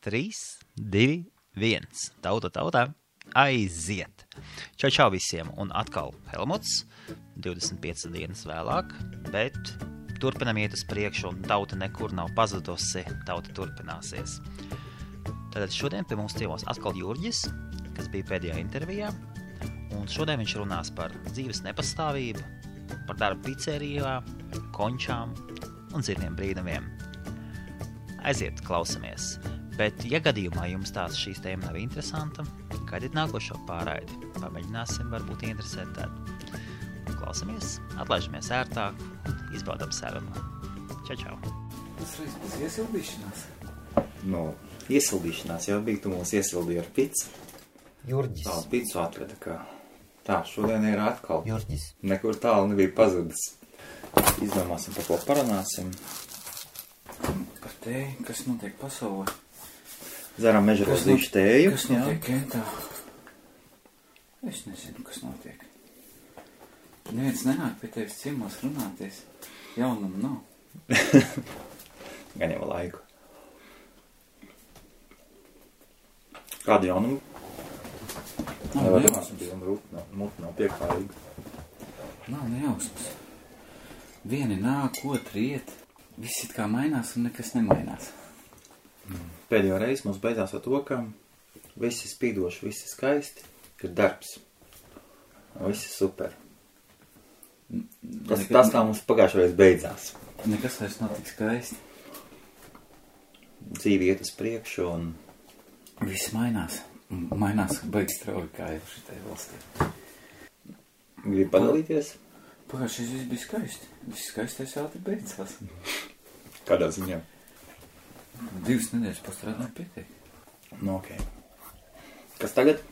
3, 2, 1. Tauta, aiziet! Čau visiem, un atkal Helmuts, 25 dienas vēlāk, bet turpinam iet uz priekšu, un tauta nekur nav pazudusi, tauta turpināsies. Tātad šodien pie mums ciemos atkal Jurģis, kas bija pēdējā intervijā, un šodien viņš runās par dzīves nepastāvību, par darbu picerijā, končām un citiem brīnumiem. Aiziet, klausamies! Bet, ja gadījumā jums tās šīs tēma nav interesanta, gaidiet nākošo pārraidi. Pamēģināsim, varbūt interesēt tādu. Klausamies, atlaižamies ērtāk un izbaudam sarunu. Čau! Tas reiz būs iesildīšanās? Iesildīšanās jau bija, tu mūs iesildīji ar picu. Jurģis. Tā, picu atveda, kā. Tā, šodien ir atkal. Jurģis. Nekur tālu nebija pazudis. Izdomāsim, par ko parunāsim. Par tēju, kas notiek pasaulē. Dzeram mežarozīšu tēju. Kas notiek Kentā? Es nezinu, kas notiek. Neviens nenāk pie tevis ciemos runāties. Jaunumu nav. Gan jau laiku. Kādu jaunumu? Nevar runāsim, bija muti nav pieklājīga. Nav nejausmas. Vieni nāk, otri iet. Viss it kā mainās un nekas nemainās. Pēdējo reizi mums beidzās ar to, ka visi spīdoši, visi skaisti, ir darbs. Visi super. Tas kā mums pagājušajā reiz beidzās. Nekas vairs nav tik skaisti. Dzīve iet uz priekšu un... Viss mainās. Mainās baigi strauji kā jau šitai valstī. Gribu padalīties? Pagājušais viss bija skaisti. Viss skaistais ātri beidzās. Kādā ziņā? 2 nedēļas pastrādāju pietiek. Ok. Kas tagad?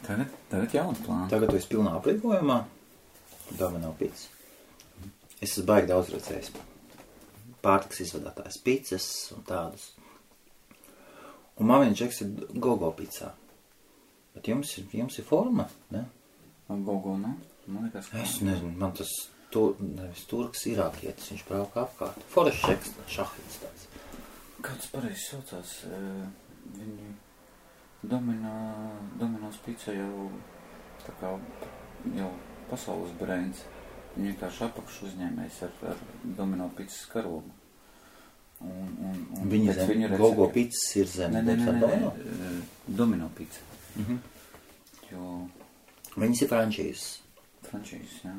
Tagad jauna plāna. Tagad tu esi pilnā aprīkojumā. Domino pits. Es esmu baigi daudz redzējis. Pārtiks izvadātājs picas un tādus. Un man viens čeks ir Gogo picā. Bet jums ir forma, ne? Gogo, ne? Man liekas, ka... Es nezinu, man tas nevis turks irākietis, viņš brauka apkārt. Forešs čeks, šahits tāds. Kāds pareizi saucās, viņi Dominos pizza jau tā kā jau pasaules brands. Viņi vienkārši apakšu uzņēmējs ar Domino pizzas karogu. Viņa zem, Gogo pizzas ir zem. Nē, Domino pizza. Jo... Viņas ir frančīzes. Frančīzes, jā.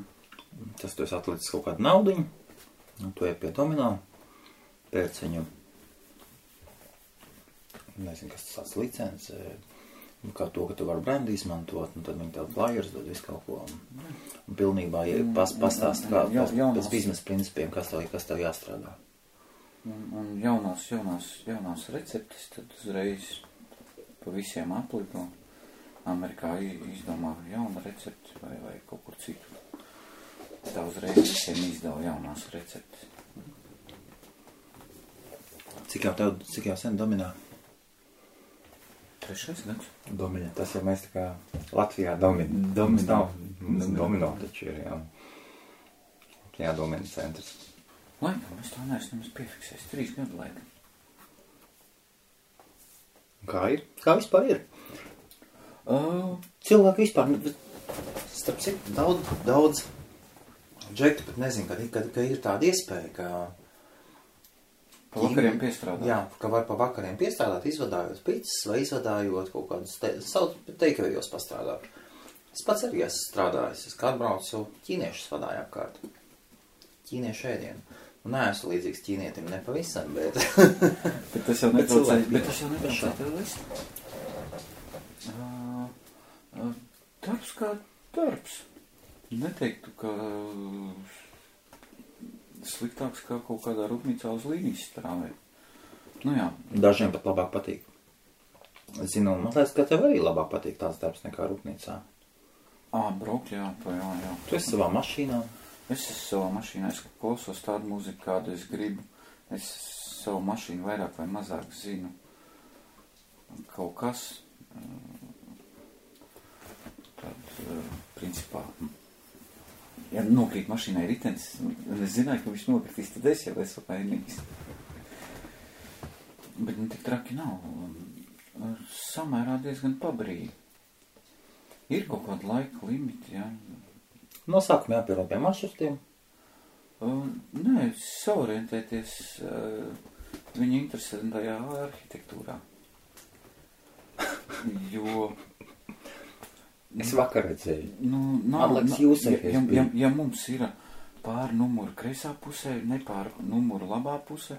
Tas tu esi atlicis kaut kādu naudiņu, un tu ej pie Domino, pēc viņu nezinu, kas tas tāds licence, kā to, ka tu vari brandu izmantot, un tad viņi tev flyers dod visu kaut ko. Un pilnībā pastāst kā pēc biznesa principiem, kas tev jāstrādā. Un jaunās receptes tad uzreiz pa visiem aplido. Amerikā izdomā jauna recepte vai kaut kur citu. Tā uzreiz visiem izdala jaunās receptes. Cik jau sen Dominā? 3. gads. Domino, tas jau mēs tā kā Latvijā Domino taču ir, jā. Jā, Domino centrs. Laikam, es tā neesmu nemaz piefiksējis. 3 gadu laikam. Kā ir? Kā vispār ir? Cilvēki vispār, starp citu, daudz džektu, bet nezinu, ka ir tāda iespēja, ka... Pa vakariem piestrādāt. Jā, ka var pa vakariem piestrādāt, izvadājot pizzas vai izvadājot kaut kādus teikavējos pastrādāt. Es pats arī esmu strādājis, es kā atbraucu ķīniešus vadāju apkārt. Ķīniešu ēdienu. Un neesmu līdzīgs ķīnietim nepavisam, bet... Bet tas jau netraucē tev list. Darbs kā darbs. Neteiktu, ka... sliktāks kā kaut kādā rūpnīcā uz līnijas strāvē. Nu jā. Dažiem pat labāk patīk. Es zinu, man liekas, ka tev arī labāk patīk tāds darbs nekā rūpnīcā. Braukt, jā. Tu esi savā mašīnā? Es esmu savā mašīnā, es klausos tādu mūziku, kādu es gribu. Es savu mašīnu vairāk vai mazāk zinu. Kaut kas. Tad, principā... Ja nokrīt mašīnai ritenis, un es zināju, ka viņš nokritīs, tad es jau esmu vainīgs. Bet tik traki nav. Samērā diezgan pabrīvi. Ir kaut kāda laika limiti, jā. No sākuma jāpierod pie maršrutiem. Nē, saorientēties viņa interesantajā arhitektūrā. Jo... Es vakar redzēju. Atliks jūsēties bija. Ja mums ir pār numuru kreisā pusē, ne pār numuru labā pusē,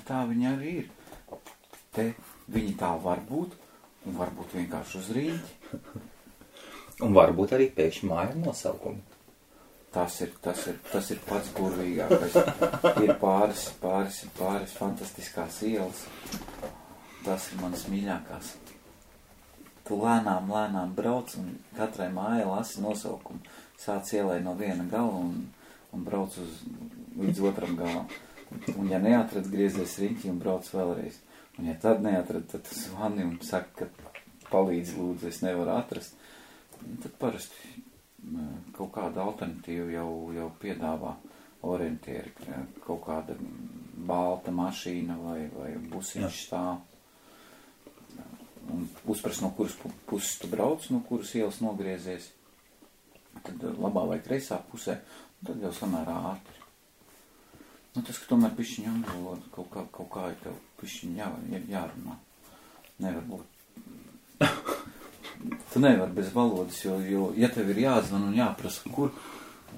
tā viņa arī ir. Te viņi tā var būt, un varbūt vienkārši uz rīņķi. Un varbūt arī pēkšņi māja nosaukumu. Tas ir pats burvīgākais. Ir pāris fantastiskās ielas. Tas ir manas mīļākās. Tu lēnām brauc un katrai mājai lasi nosaukumu. Sāc ielai no viena gala un brauc līdz otram galam. Un ja neatrad, griezies riņķi un brauc vēlreiz. Un ja tad neatrad, tad tu zvani un saka, ka palīdz lūdzu, es nevaru atrast. Tad parasti kaut kāda alternatīva jau piedāvā orientieri. Kaut kāda balta mašīna vai busiņš stāv. Un uzprast, no kuras puses tu brauc, no kuras ielas nogriezies. Tad labā vai kreisā pusē, un tad jau samērā ātri. Tas, ka tomēr pišķiņ angļu valoda, kaut kā ir tev pišķiņ jārunā. Nevar būt. Tu nevar bez valodas, jo ja tev ir jāzvan un jāprasa, kur,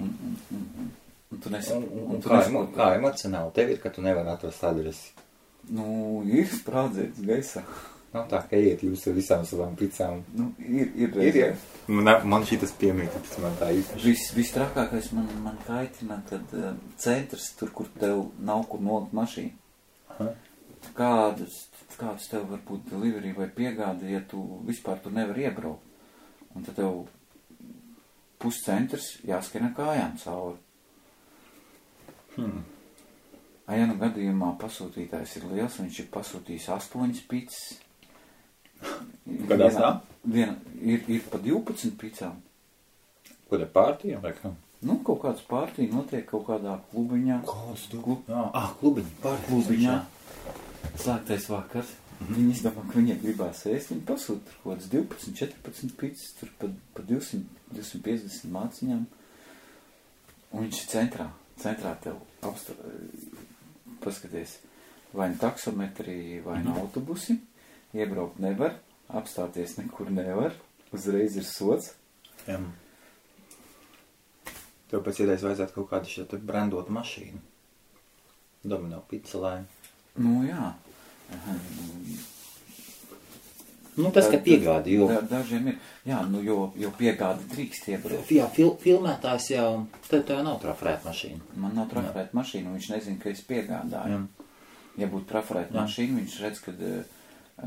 un tu nesaproti. Kā emocionāli tev ir, ka tu nevar atrast adresi? Ir sprādzēts gaisā. Nav tā, ka iet jūs ar visām savām picām. Ir reizē. Man šitas piemīt, tāpēc man tā īpaši. Viss trakākais man kaitina, kad centrs, tur, kur tev nav kur nolikt mašīnu. Kādas tev var būt delivery vai piegāda, ja tu vispār tur nevar iebraukt. Un tad tev puscentrs jāskrien kājām cauri. Ja nu gadījumā pasūtītājs ir liels, viņš ir pasūtījis 8 picas. Kādās tā? Ir pa 12 picām. Kur ir pārtījā vai kā? Kaut kāds pārtī notiek kaut kādā klubiņā. Kāds klubiņa, klubiņā. Slēgtais vakars. Viņi izdomā, ka viņiem gribās ēst. Viņi pasūta tur kaut kāds 12, 14 picas, tur pa 250 māciņām. Un viņš ir centrā. Centrā tev paskaties, vai nu taksometri, vai nu autobusi. Iebraukt nevar, apstāties nekur nevar, uzreiz ir sots. Jā. Tev pēc idejas vajadzētu kaut kādu šo brandotu mašīnu. Domino picelē. Jā. Tas, ka piegādi, jo... Dažiem ir, jo piegādi drīkst iebraukt. Jā, filmētājs jau, tev nav trafarēta mašīna. Man nav trafarēta mašīna, un viņš nezina, ka es piegādāju. Ja būtu trafarēta mašīna, viņš redz, kad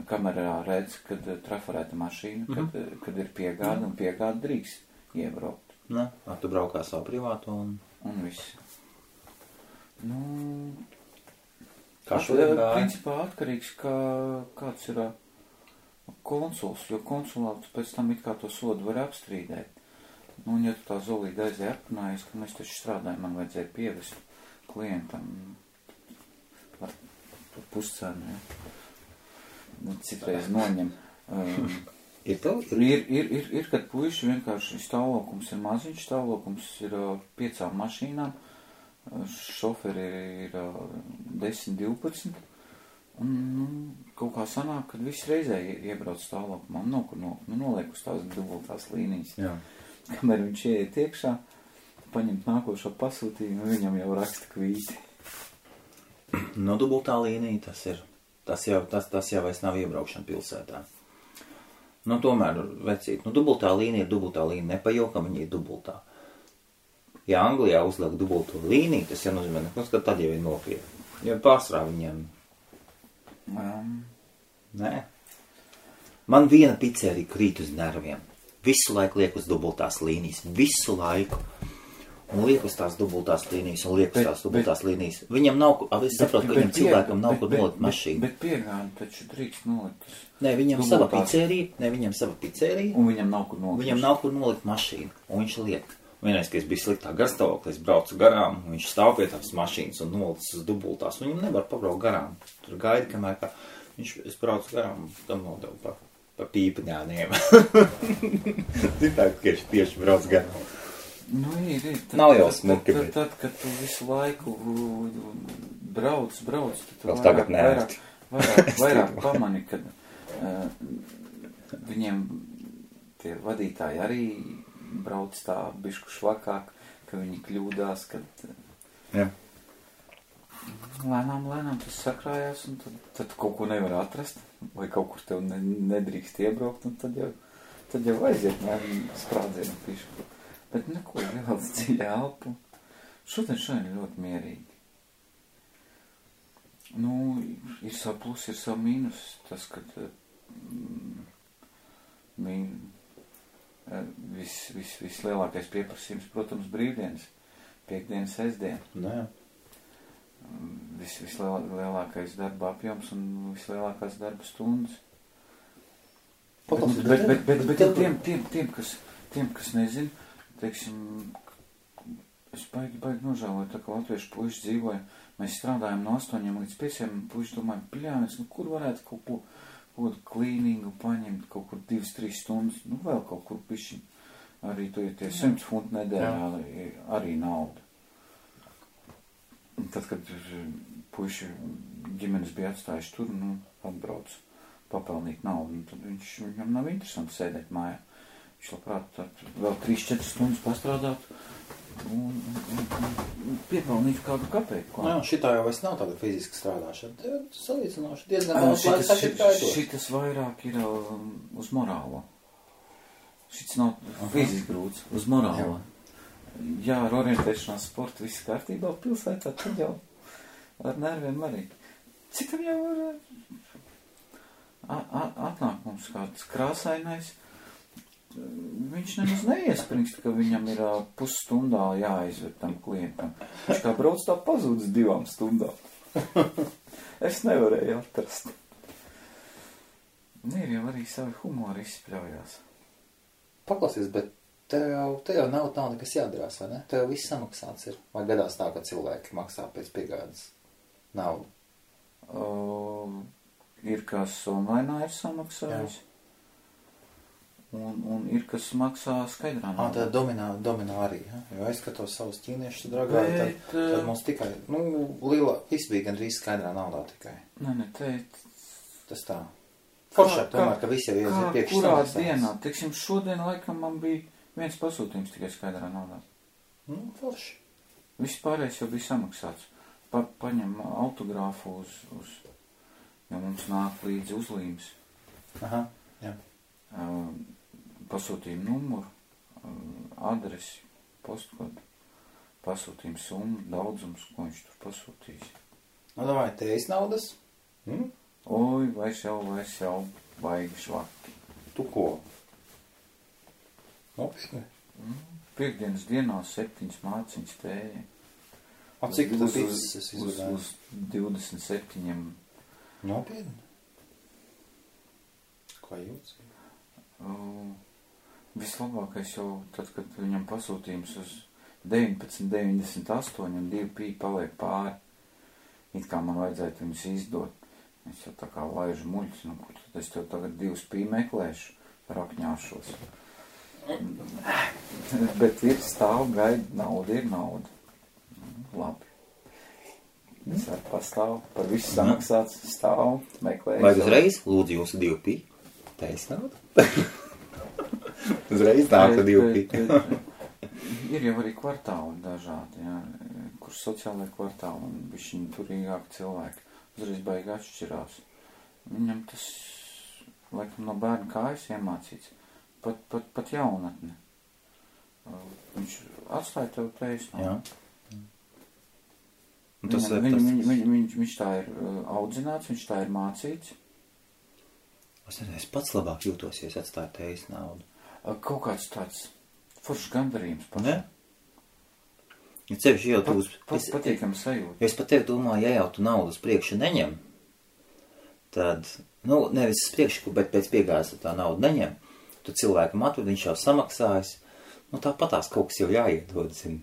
kamerā redz, kad trafarēta mašīna, kad ir piegāda, un piegāda drīkst iebraukt. Tu braukā savu privātu un viss. Kā šodien gāja? Principā atkarīgs, kāds ir konsuls, jo konsulāts pēc tam it kā to sodu var apstrīdēt. Ja tu tā zolīdi aizēja aprunājies, ka mēs taču strādājam, man vajadzēja pievest klientam par puscenu, citreiz noņem. Ir, kad puiši vienkārši stāvokums ir maziņš, stāvokums ir 5 mašīnām, šoferi ir 10, 12, un kaut kā sanāk, kad viss reizē iebrauc stāvokumā, noliek uz tās dubultās līnijas. Jā. Kamēr viņš ieiet iekšā, paņemt nākošo pasūtījumu, viņam jau raksta kvīti. Dubultā līnija tas jau vairs nav iebraukšana pilsētā. Tomēr, vecīt, dubultā līnija ir dubultā līnija, nepajokam viņa ir dubultā. Ja Anglijā uzliek dubulto līniju, tas jau nozīmē, ka tad jau ir nopietni. Jo pārsvarā viņiem... Nē. Man viena pizzerija krīt uz nerviem. Visu laiku liek uz dubultās līnijas. Visu laiku. Un liek uz tās dubultās līnijas, un liek uz tās dubultās līnijas. Viņam nav, es saprotu, ka viņam cilvēkam nav kur nolikt mašīnu. Bet piegādi taču drīkst nolikt. Nē, viņam sava pizzerija. Un viņam nav kur nolikt. Viņam nav kur nolikt mašīnu, un viņš liek. Vienreiz, kad es biju sliktā garstāvoklī, es braucu garām, un viņš stāv pie tās mašīnas un nolicis uz dubultās, un viņam nevar pabraukt garām. Tur gaida, kamēr kā... Es braucu garām, tam nodevu pa pīpaņāniem. Tā, ka tieši brauc garām. Nu, ir. Nav jau smuki, bet... Tad, kad tu visu laiku brauc, tad tu vairāk pamani, kad viņiem tie vadītāji arī brauc tā bišku švakāk, ka viņi kļūdās, kad... Jā. Lēnām tas sakrājās, un tad kaut ko nevar atrast, vai kaut kur tev nedrīkst iebraukt, un tad jau aiziet sprādzienu pišku. Bet neko, ievelc dziļi elpu. Šodien ļoti mierīgi. Nu, ir savu plus, ir savu mīnus. Tas, kad vislielākais pieprasījums, protams, brīvdienas, piekdienas, sestdien. Nē. Vislielākais darba apjoms un vislielākās darba stundas. Bet tiem, kas nezin, teiksim, es baigi nožēloju, tā kā latviešu puiši dzīvoja, mēs strādājam no 8 līdz 5, un puiši domāja, pļāvis, nu kur varētu kaut ko klīningu paņemt, kaut kur 2-3 stundas, nu vēl kaut kur pišķi, arī tu ir tie 100 funti nedēļā, arī nauda. Un tad, kad puiši ģimenes bija atstājuši tur, nu, atbrauc papelnīt naudu, un tad viņam nav interesanti sēdēt mājā. Viņš labprāt tad vēl 3-4 stundas pastrādāt un piepelnīt kādu kapeiku. Jā, šitā jau vairs nav tāda fiziska strādāšana. Salīdzinoši diezgan daudz laiks sašķiet kā iedot. Šitas vairāk ir uz morālo. Šitas nav fiziski grūts, uz morālo. Jā, ar orientēšanās sportu viss kārtībā pilsētā, tad jau ar nerviem arī. Citam jau var atnāk mums kāds krāsainais, viņš nemaz neiespringst, ka viņam ir pusstundā jāizved tam klientam. Viņš kā brauc tā pazūdz 2 stundām. Es nevarēju atrast. Ir jau arī savi humori izspļaujās. Paklausies, bet tev jau nav nekas jādarās, vai ne? Tev viss samaksāts ir. Vai gadās tā, ka cilvēki maksā pēc piegādes naudu? Ir kas online ir samaksājis. Un ir, kas maksā skaidrā naudā. Tā dominā arī, ja? Jo es skatos savus ķīniešus dragāju, tad mums tikai, viss bija gandrīz skaidrā naudā tikai. Nē, tas tā. Foršāk tomēr, ka visi jau ir priekš samaksājis. Kurā dienā, teiksim, šodien laikam man bija viens pasūtījums tikai skaidrā naudā. Forši. Viss pārējais jau bija samaksāts. Paņem autogrāfu jo mums nāk līdzi uzlīmes. Aha, jā. Pasūtījumu numuru, adresi, postkodu, pasūtījumu summu, daudzums, ko viņš tur pasūtīs. Davai, tevis naudas? Oi, vairs jau, baigi švaki. Tu ko? Nopietni? Piekdienas dienā 7 māciņas tēja. Cik tu pizzas izvedāji? Uz 27. Nopietni? Kā jūtas? Vislabākais jau tad, kad viņam pasūtījums uz 19,98 un 2 pī paliek pāri. It kā man vajadzētu viņus izdot. Es jau tā kā laižu muļķis, kur tad es tev tagad 2 pī meklēšu, rakņāšos. Bet ir stāv, gaida, nauda ir nauda. Labi. Es arī pastāvu, par visu samaksāts, stāvu, meklēju. Vai uzreiz lūdzu jūsu 2 pī? Teis nauda? Uzreiz nāk 2 pī. Ir jau arī kvartāli dažādi, jā, kur sociālai kvartāli un bišķiņi turīgāki cilvēki. Uzreiz baigi atšķirās. Viņam tas, laikam, no bērna kājas iemācīts. Pat jaunatne. Viņš atstāja tev taisnību. Jā. Viņš tā ir audzināts, viņš tā ir mācīts. Es pats labāk jūtos, ja es atstāju tevis naudu. Kaut kāds tāds foršs gandarījums pašam. Ne? Ja cevišķi jau tu patīkami sajūta. Es pat tevi domāju, ja jau tu naudu uz priekšu neņem, tad, nevis uz priekšu, bet pēc piegādes tā naudu neņem, tu cilvēkam atved, viņš jau samaksājas, tāpatās kaut kas jau jāiedod, zini.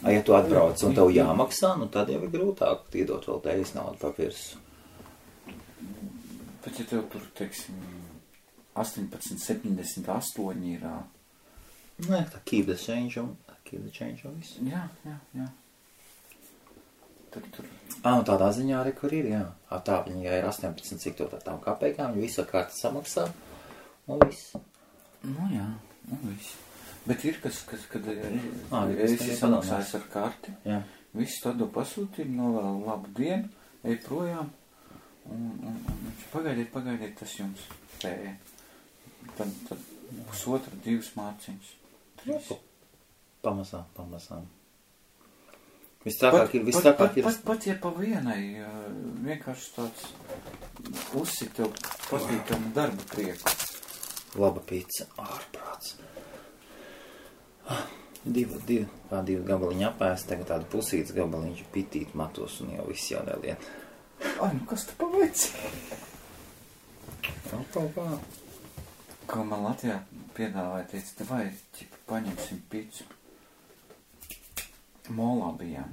Ja tu atbrauc un tev jāmaksā, tad jau ir grūtāk iedot vēl tevis naudu pa virsu. Bet ja tev tur, teiksim, 18,78 ir... Nē, tā keep the change un viss. Jā. Tad tur... Nu tādā ziņā arī, kur ir, jā. Tā viņa, ja ir 18, cik to tām kapekām, viņa visu kārtu samaksā, un viss. Nu jā, un viss. Bet ir kas, kad esi samaksājis ar karti, jā. Viss tādu pasūtījumu, novēl labu dienu, ej projām, un pagaidiet, tas jums tēja. Tad pusotra, 2 mārciņas, 3. Pamazām. Viss tākāk ir. Pat ja pa vienai, vienkārši tāds uzsit tev patīkam darba prieku. Laba pizza, ārprāts. 2 gabaliņi apēst, tagad tādu pusītas gabaliņš pitīt matos un jau viss jau nelien. Nu kas tu paveici? Kā. Ko man Latvijā piedāvāja, teica, vai paņemsim pizzu. Molā bijām.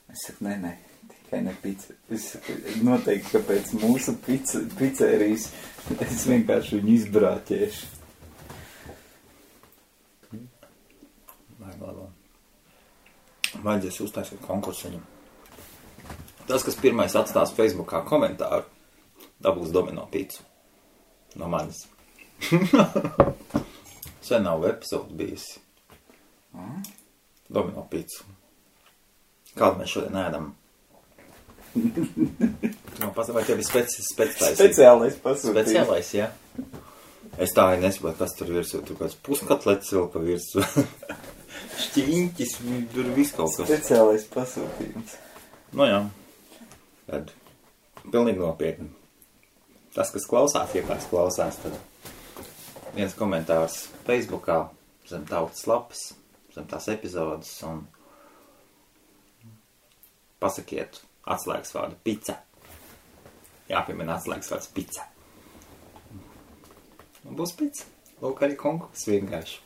Es saku, nē, tikai ne pizza. Es saku, noteikti, ka pēc mūsu pizzerijas es vienkārši viņu izbrāķēšu. Vajadzēs uztaisīt konkursu viņam. Tas, kas pirmais atstās Facebookā komentāru, dabūs domino pizzu. No manis. Sen nav epizodu bijusi. Domino pizzu. Kādu mēs šodien ēdam? Vai tev ir speciālais pasūtījums? Speciālais, jā. Es tā arī nesaprotu, kas tur virsū. Tur kāds puskatlets vēl pa virsū. Šķiņķis, tur viss kaut kas. Speciālais pasūtījums. Nu jā. Tad pilnīgi nopietni. Tas, kas klausās, tad viens komentārs Facebookā zem tautas lapas, zem tās epizodes un pasakiet atslēgas vārdu pizza. Jāpiemina atslēgas vārds pizza. Un būs pizza. Lūk arī konkurss vienkārši.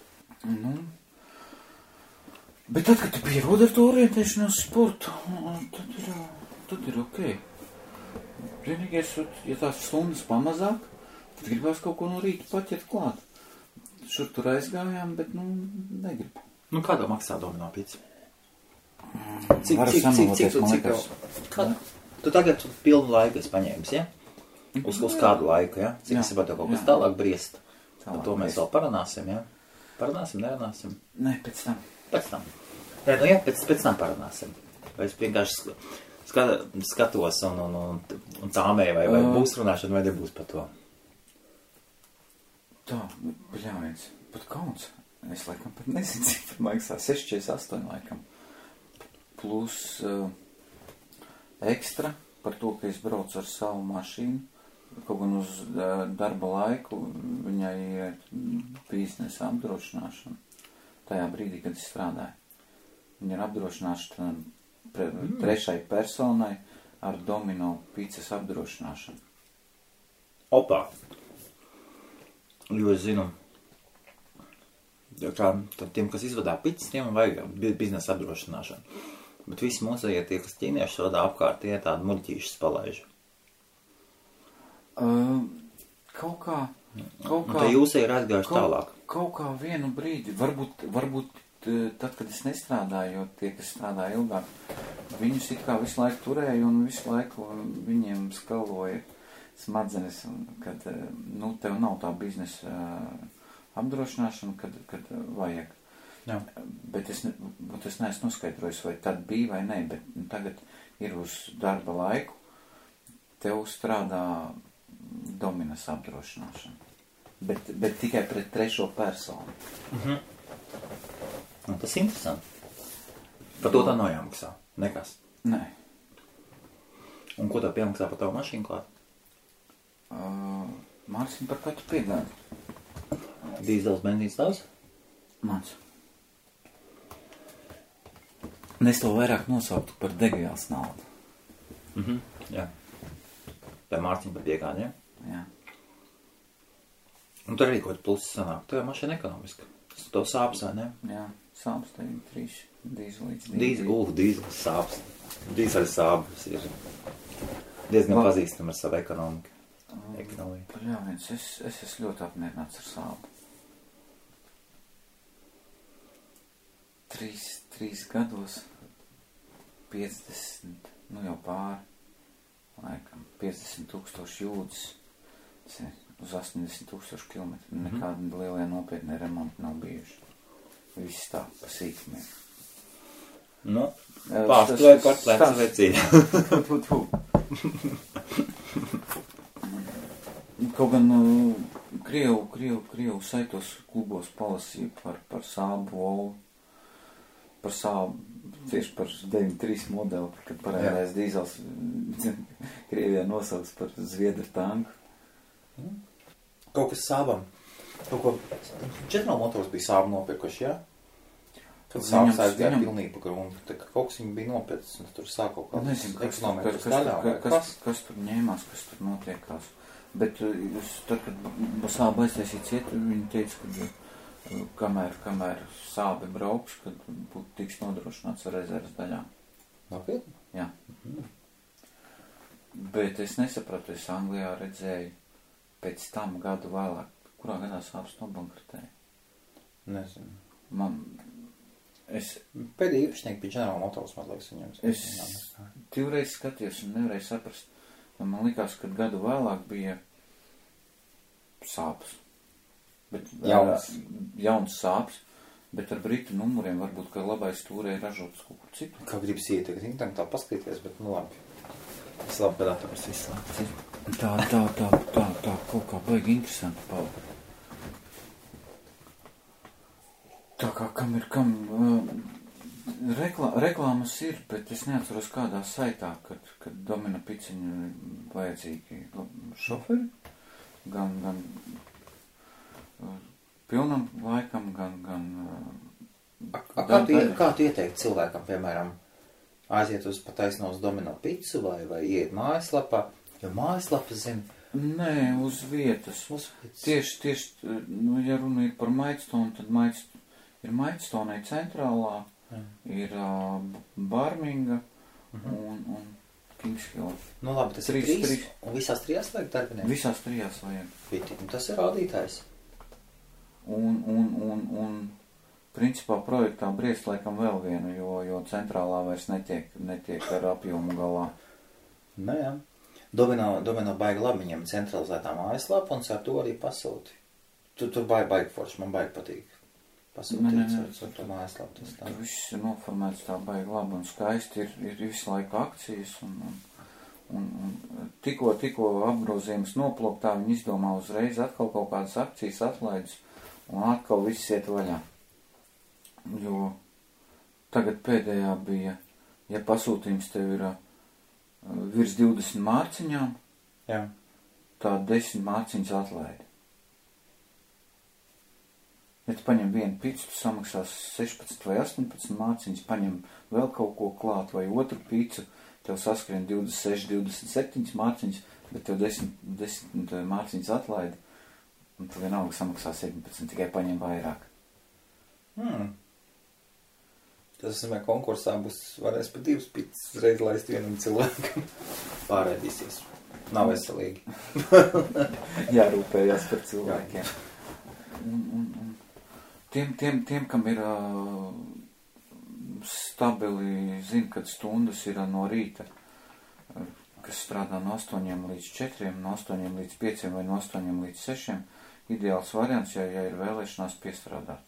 Bet tad, kad tu pierodi ar to orientēšanos sportu, tad ir ok. Vienīgais, ja tās stundas pamazāk, tad gribās kaut ko no rīta paķert klāt. Šur tur aizgājām, bet, negribu. Kādā maksā domino pizza? Cik tu tagad pilnu laiku esi paņēmis, ja? Uz kādu laiku, ja? Cik es saprotu kaut kas tālāk briest? Par to mēs vēl parunāsim, ja? Parunāsim, nerunāsim? Nē, pēc tam. Pēc tam parunāsim. Vai es vienkārši skatos un cāmēju, vai būs runāšana, vai nebūs par to? Tā, bļāviens, pat kauns. Es laikam pat nezinu, cik par maksā. 6,48 laikam. Plus ekstra par to, ka es braucu ar savu mašīnu. Kaut gan uz darba laiku viņai ir biznesa apdrošināšana. Tajā brīdī, kad es strādāju. Viņa ir apdrošināšana trešai personai ar domino pizzas apdrošināšanu. Opā! Jo es zinu, tad tiem, kas izvadā pizzas, tiem vajag biznesa apdrošināšanu. Bet visi mūsējie tie, kas ķīnieši vadā apkārt, tie tādi muļķīšas palaiž. Kaut kā... Tā jūsē ir aizgājuši tālāk. Kaut kā vienu brīdi, varbūt tad, kad es nestrādāju, jo tie, kas strādāja ilgāk, viņus it kā visu laiku turēja un visu laiku viņiem skaloja smadzenes, kad, tev nav tā biznesa apdrošināšana, kad vajag. Jā. Bet es neesmu noskaidrojis, vai tad bija vai nē, bet tagad ir uz darba laiku, tev strādā dominas apdrošināšana. Bet tikai pret trešo personu. Tas ir interesanti. Par to tā nav jāmaksā. Nekas. Nē. Un ko tā piemaksā par tavu mašīnu klāt? Māksim par katru piegādi. Dīzels, benzīns tavs? Mans. Es to vairāk nosauktu par degvielas naudu. Jā. Tā Mārciņa par piegādi, ja? Jā. Un tur arī kaut plusi sanāk. Tev mašīna ekonomiska. Tas to sāps, vai ne? Jā, sāps tā ir 3 dīzelīts. Dīzels sāps. Dīzeļa sāpes ir diezgan pazīstama ar savu ekonomiku. Eknoja. Jā, es esmu ļoti apmierināts ar Sābu. 3 gados 50, nu jau pāri, laikam, 50,000 jūdzes, uz 80,000 kilometru. Nekādi lielie nopietni remonti nav bijuši. Viss tā, pa sīkumiem. Nu, pārstāvēju par plecu vecību. Kaut gan Krievu saitos klubos palasīju par Sābu Volu, par Sābu, tieši par 93 modeli, kad parādījās dīzels Krievijā nosauks par Zviedru tanku. Kaut kas Sābam. Kaut ko General Motors bija Sābu nopirkuši, jā? Kad Sābas aizgāja pilnīgi pa gruntu, tā kā kaut kas viņi bija nopircis, un tur sāk kaut kāds ekonomikas daļā. Kas tur ņēmās, kas tur notiekās. Bet tad, kad Sāba aiztaisīja cietu, viņi teica, ka kamēr Sābi brauks, kad būtu tiks nodrošināts ar rezerves daļām. Nopietni? Jā. Bet es nesapratu, es Anglijā redzēju pēc tam gadu vēlāk, kurā gadā Sābas nobankrotēja. Nezinu. Es pēdējā īpašnieki bija General Motors, man liekas, viņam. Es 2 reizes skatījos un nevarēju saprast. Man likās, ka gadu vēlāk bija Sābas. Jauns Sābas, bet ar britu numuriem varbūt, ka labais stūrē ražotas kaut kur citu. Kā gribas ieteikt, internetā tā paskatīties, bet nu labi. Es labi dators izslēgts. Tā, kaut kā baigi interesanti palika. Tā kā kam reklāmas ir, bet es neatceros kādā saitā, kad Domina Piciņu vajadzīgi šoferi, gan pilnam laikam, gan Kā tu ieteikti cilvēkam, piemēram, aiziet uz pataisno uz Domino Picu vai iet mājaslapā, jo mājaslapas zina? Nē, uz vietas. Tieši, ja runa ir par Maidstonu, tad ir Maidstonai centrālā, ir Barminga un Kingshill. Nu labi, tas ir 3, un visās 3 vajag darbinieki? Visās 3 vajag. Un tas ir rādītājs. Un principā projektā briest laikam vēl vienu, jo centrālā vairs netiek ar apjomu galā. Nē, jā. Domino baigi labi, viņam centralizētā mājaslapa, un ar to arī pasūti. Tur baigi forši, man baigi patīk. Pasūtīts ar to mājaslapu. Tur viss ir noformēts tā baigi labi un skaisti, ir visu laiku akcijas, un tikko apgrozījums noplūktā, viņi izdomā uzreiz atkal kaut kādas akcijas atlaides, un atkal viss iet vaļā. Jo tagad pēdējā bija, ja pasūtījums tev ir virs 20 mārciņām, jā, tā 10 mārciņas atlaidi. Ja tu paņem vienu picu, tu samaksās 16 vai 18 mārciņas, paņem vēl kaut ko klāt vai otru picu, tev saskrien 26, 27 mārciņas, bet tev 10 mārciņas atlaidi, un tu vienalga samaksā 17, tikai paņem vairāk. Tas nozīmē, konkursā varēs pa 2 picas reiz laist vienam cilvēkam. Pārēdīsies. Nav veselīgi. Jārūpējās par cilvēkiem. Un tiem, kam ir stabili, zina, kad stundas ir no rīta, kas strādā no 8 līdz 4, no 8 līdz 5 vai no 8 līdz 6, ideāls variants, ja ir vēlēšanās piestrādāt.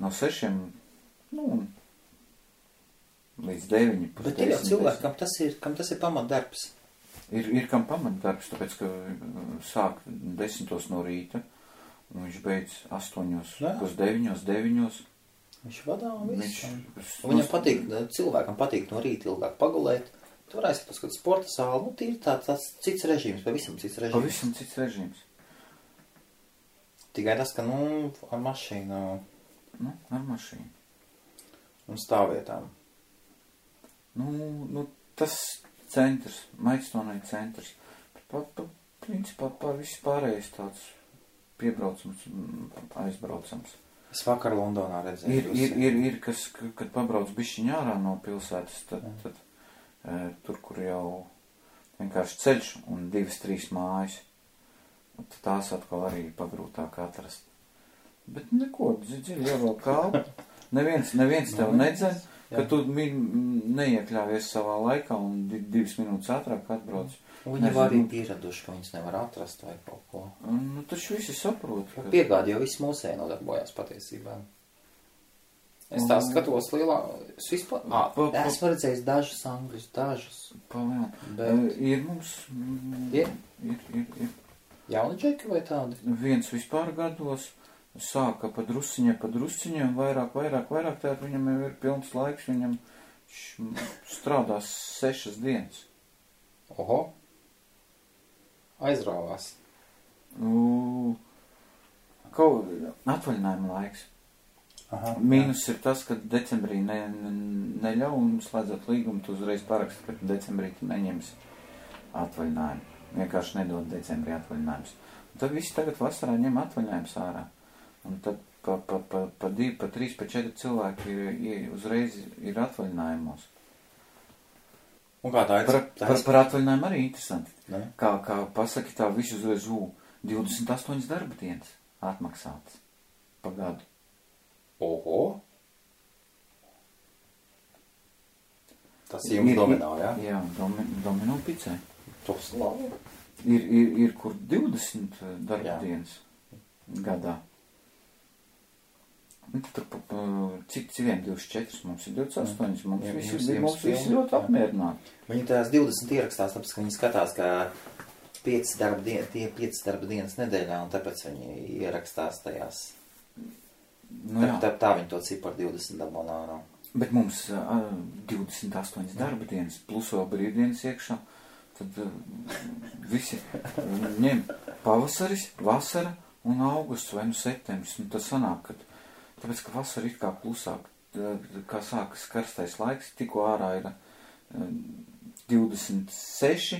No 6, līdz 9. Bet ir jau cilvēki, kam tas ir pamatdarbs. Ir kam pamatdarbs, tāpēc, ka sāk 10 no rīta, un viņš beidz 8, pus 9. Viņš vadā un viss. Viņam patīk, cilvēkam patīk no rīta ilgāk pagulēt. Tu varēs paskatīt sporta sāli, ir tāds cits režīms, pavisam cits režīms. Pavisam cits režīms. Tikai tas, ka, ar mašīnu. Ar mašīnu. Un stāvvietām. Tas centrs, Maidstonai centrs. Principā viss pārējais tāds piebraucams, aizbraucams. Es vakar Londonā redzēju. Ir kas, kad pabrauc bišķiņ ārā no pilsētas, tad tur, kur jau vienkārši ceļš un 2-3 mājas. Un tās atkal arī pagrūtāk atrast. Bet neko, dziļi jau vēl kalpu. Neviens tev nedzen, ka tu neiekļāvies savā laikā un 2 minūtes ātrāk atbrauc. Viņi var arī pieraduši, ka viņas nevar atrast vai kaut ko. Nu, taču visi saprot. Ka... Piegādi jau viss mūsēji nodarbojās patiesībā. Es tā skatos lielā... Es vispār... esmu redzējis dažas angļus, dažas. Bet... Ir mums... Ir. Jauni džeki vai tādi? Viens vispār gados sāka pa drusciņiem, vairāk, tātad viņam jau ir pilns laiks, viņam strādās 6 dienas. Oho. Aizrāvās. Atvaļinājuma laiks. Aha, Mīnus ir tas, ka decembrī neļauj un slēdzot līgumu, tu uzreiz paraksti, ka decembrī tu neņemsi atvaļinājumu. Vienkārši nedod decembrī atvaļinājumus. Un tad visi tagad vasarā ņem atvaļinājumus ārā. Un tad pa 2, pa 3, pa 4 cilvēki uzreiz ir atvaļinājumos. Un kā tā ir? Par atvaļinājumu arī interesanti. Ne? Kā pasaki tā visu uzreiz 28 darba dienas atmaksātas pa gadu. Oho. Tas jums domino, jā? Jā, domino picē. Tas labi. Ir kur 20 darba dienas gadā. Tur cik 24, mums ir 28, mums visi ļoti apmierināti. Viņi tās 20 ierakstās, tāpēc, ka viņi skatās, ka 5 darba dienas nedēļā, un tāpēc viņi ierakstās tajās. Nu, tā viņi to ciparu 20 dabonā. Bet mums 28 darba dienas, plus vēl brīvdienas iekšā, tad visi ņem pavasaris, vasara un augusts vai septembris. Un tas sanāk, ka tāpēc, ka vasara ir kā klusāk, kā sākas karstais laiks, tikko ārā ir 26,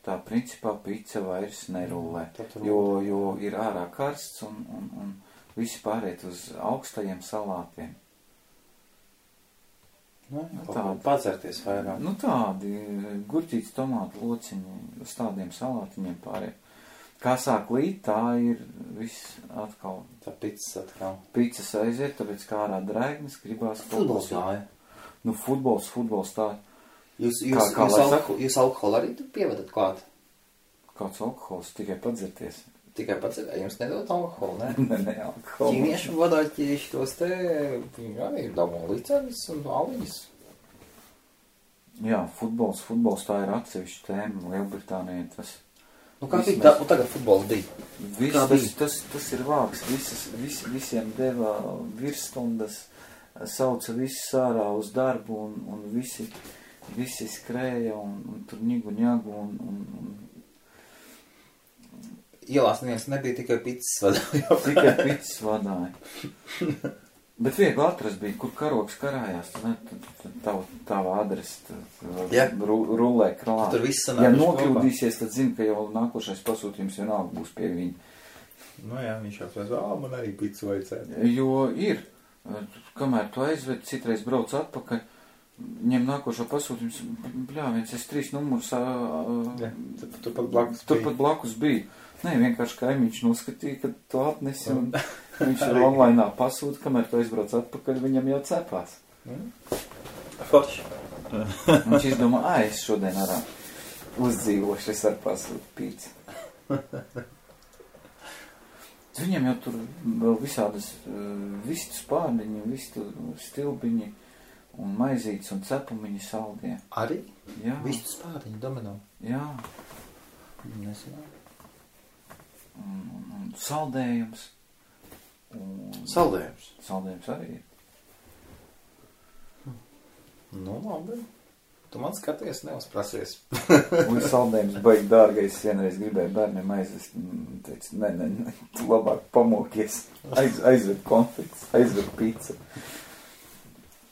tā principā pica vairs nerulē, jo ir ārā karsts un visi pāriet uz augstajiem salātiem. Tādi padzerties vairāk. Nu tādi gurķītes, tomātu lociņi, uz tādiem salātiņiem pāriet. Kā sāk līt, tā ir viss atkal. Tā picas atkal. Picas aiziet, tāpēc kā ārā drēgnes gribās. Futbols gāja. Nu, futbols tā. Jūs alkoholu arī tur pievedat klāt? Kāds alkohols? Tikai padzerties. Tikai padzerties? Jums nedod alkoholu, ne? Ne, alkoholu. Ķīniešu vadāķieši tos te, viņi arī dabū licenis un aliņas. Jā, futbols tā ir atsevišķa tēma. Lielbritānija tas... Nu kā bija? Un tagad futbols bija? Tas ir vāks. Visiem deva virsstundas, sauca visus ārā uz darbu un visi skrēja un tur ņagu un Ielās neviens nebija, tikai picas vadāja. Tikai picas vadāja. Bet viegli atrast bija, kur karoks karājās, tava adrese rullē krālā. Tur viss sanāk. Ja nokļūdīsies, tad zini, ka jau nākošais pasūtījums vienalga būs pie viņa. Nu jā, viņš jau pēc, man arī picu vajadzētu. Jo ir, kamēr tu aizved, citreiz brauc atpakaļ, ņem nākošo pasūtījums, bļāviens, es 3 numurus, turpat blakus bija. Nē, vienkārši kaimiņš noskatīja, ka tu atnesi un viņš ir online pasūta, kamēr tu aizbrauc atpakaļ, viņam jau cepās. Forši. Viņš izdomā, es šodien arā uzdzīvošu, es ar pasūtu pīci. Viņam jau tur vēl visādas vistu spārniņi, vistu stilbiņi un maizītes un cepumiņi saldie. Arī? Jā. Vistu spārniņi domino? Jā. Nesanāk. Un saldējums. Saldējums? Saldējums arī ir. Nu, labi. Tu man skaties, neuzprasies. Un saldējums baigi dārgais, vienreiz gribēju bērniem aizvest. Teicu, ne, tu labāk pamokies. Aizved konfekts, aizved pizza.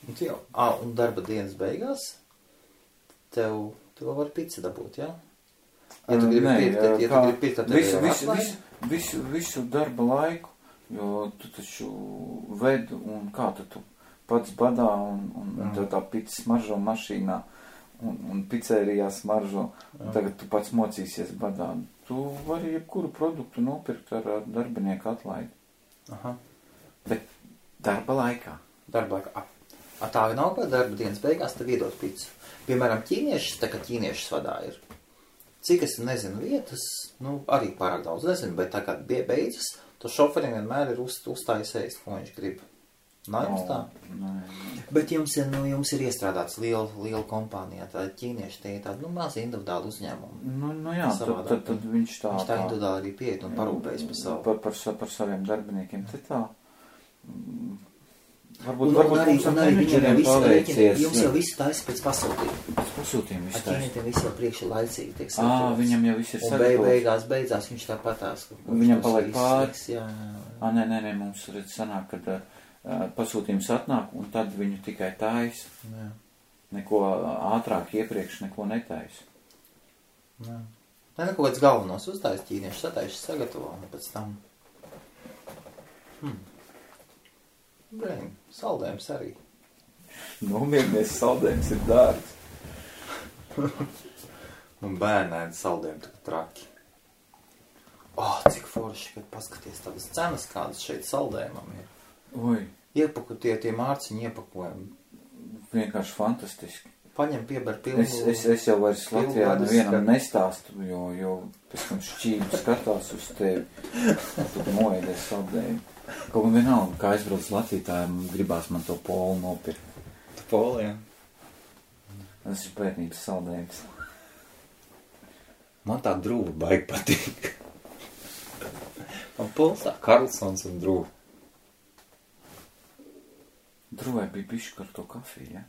Un darba dienas beigās tev var pizza dabūt, jā? Ja tu gribi pirkt, tad visu darba laiku, jo tu taču ved un kā tu pats badā un tev tā pizza smaržo mašīnā un pizzērijā smaržo, un tagad tu pats mocīsies badā. Tu vari jebkuru produktu nopirkt ar darbinieku atlaidi. Aha. Bet darba laikā. Darba laikā. Tā nav, ka darba dienas beigās tev iedot pizzu. Piemēram, ķīniešus, tā kā ķīniešus vadā ir. Cik es nezinu vietas, arī pārāk daudz nezinu, bet tā kā beidzas, to šoferiem vienmēr ir uzstājis ēst, ko viņš grib. Nav jums tā? Nē. Bet jums ir iestrādāts liela kompānijā, tā ķīnieši, tie ir tādi, mazi individuāli uzņēmumi. Jā, tad viņš tā... Viņš tā individuāli arī pieiet un parūpējas par savu. Par saviem darbiniekiem, te tā... Varbūt un arī viņam jau visu rēķini, jums jau visu taisa pēc pasūtījuma. Pasūtījuma visu taisa. Ķīnietim visu jau priekši laicīgi tiek sagatavots. Viņam jau viss ir sagatavots. Un beidzās viņš tā patās. Viņam paliek pāris. Jā. Nē, mums redz sanāk, kad pasūtījums atnāk, un tad viņu tikai taisa. Jā. Neko ātrāk iepriekš neko netaisa. Jā. Kaut kāds galvenos uztais ķīnieši sataisa sagatavo, un pēc tam... Brēn, saldējums arī. Nomierinies, saldējums ir dārgs. Un bērnēdi saldējumi tā traki. Cik forši, kad paskaties tādas cenas, kādas šeit saldējumam ir. Oi. Tie mārciņi iepakojumi. Vienkārši fantastiski. Paņem pieber pilnu... Es jau vairs Latvijā nevienam nestāstu, jo pēc tam šķību skatās uz tevi. Tad moēdies saldējumu. Kaut un vienalga, kā aizbrauc Latviju, tā gribās man to polu nopirkt. Tu polu, jā. Tas ir bērnības saldējums. Man tā drūva baigi patīk. Man pols tā Karlsons un drūva. Drūvai bija bišķi ar to kafiju, ja?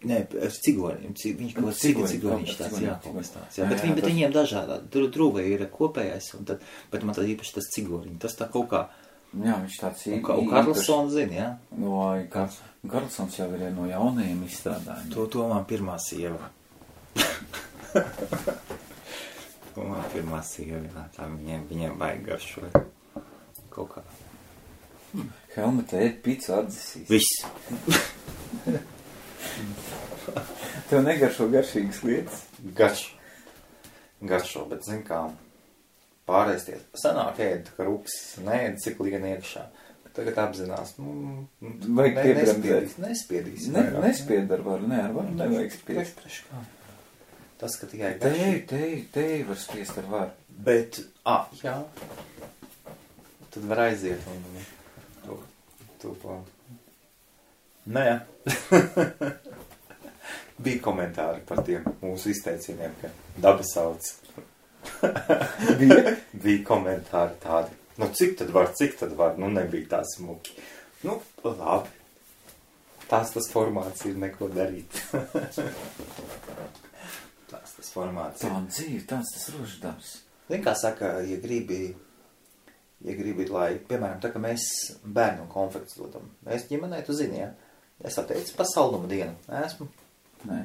Nē, ar cigoņiem. Viņš kaut cigoniņš tāds, jā. Bet viņiem dažādā. Drūvai ir kopējais, bet man tad īpaši tas cigoriņi. Tas tā kaut kā... Jā, viņš tāds Un Karlsons zina, jā? Karlsons jau ir no jaunajiem izstrādājumiem. To man pirmā sieva. Tā viņiem vajag garšoja. Kaut kā. Helmeta ēd picu atdzisīs. Viss. Tev negaršo garšīgas lietas? Garšo, bet zin kā... Pārēsties. Sanāk ēd, ka rupsis neēd, cik lien iekšā. Tagad apzinās, nespiedīs. Nespied ar varu, nevajag spiest. Tas, ka tikai Teji var spiest ar varu. Bet, jā. Tad var aiziet un to. Nē. Bija komentāri par tiem mūsu izteicieniem, ka daba sauc. Bija komentāri tādi. Cik tad var? Nebija tā smuki. Labi. Tas formāts ir neko darīt. Tas formāts ir. Tā dzīve, tas roždams. Zin, kā saka, ja gribi, lai, piemēram, tā, ka mēs bērnu konfekts dodam. Mēs ģimenei, tu zini, ja? Es atteicu pa saldumu dienu. Esmu? Nē.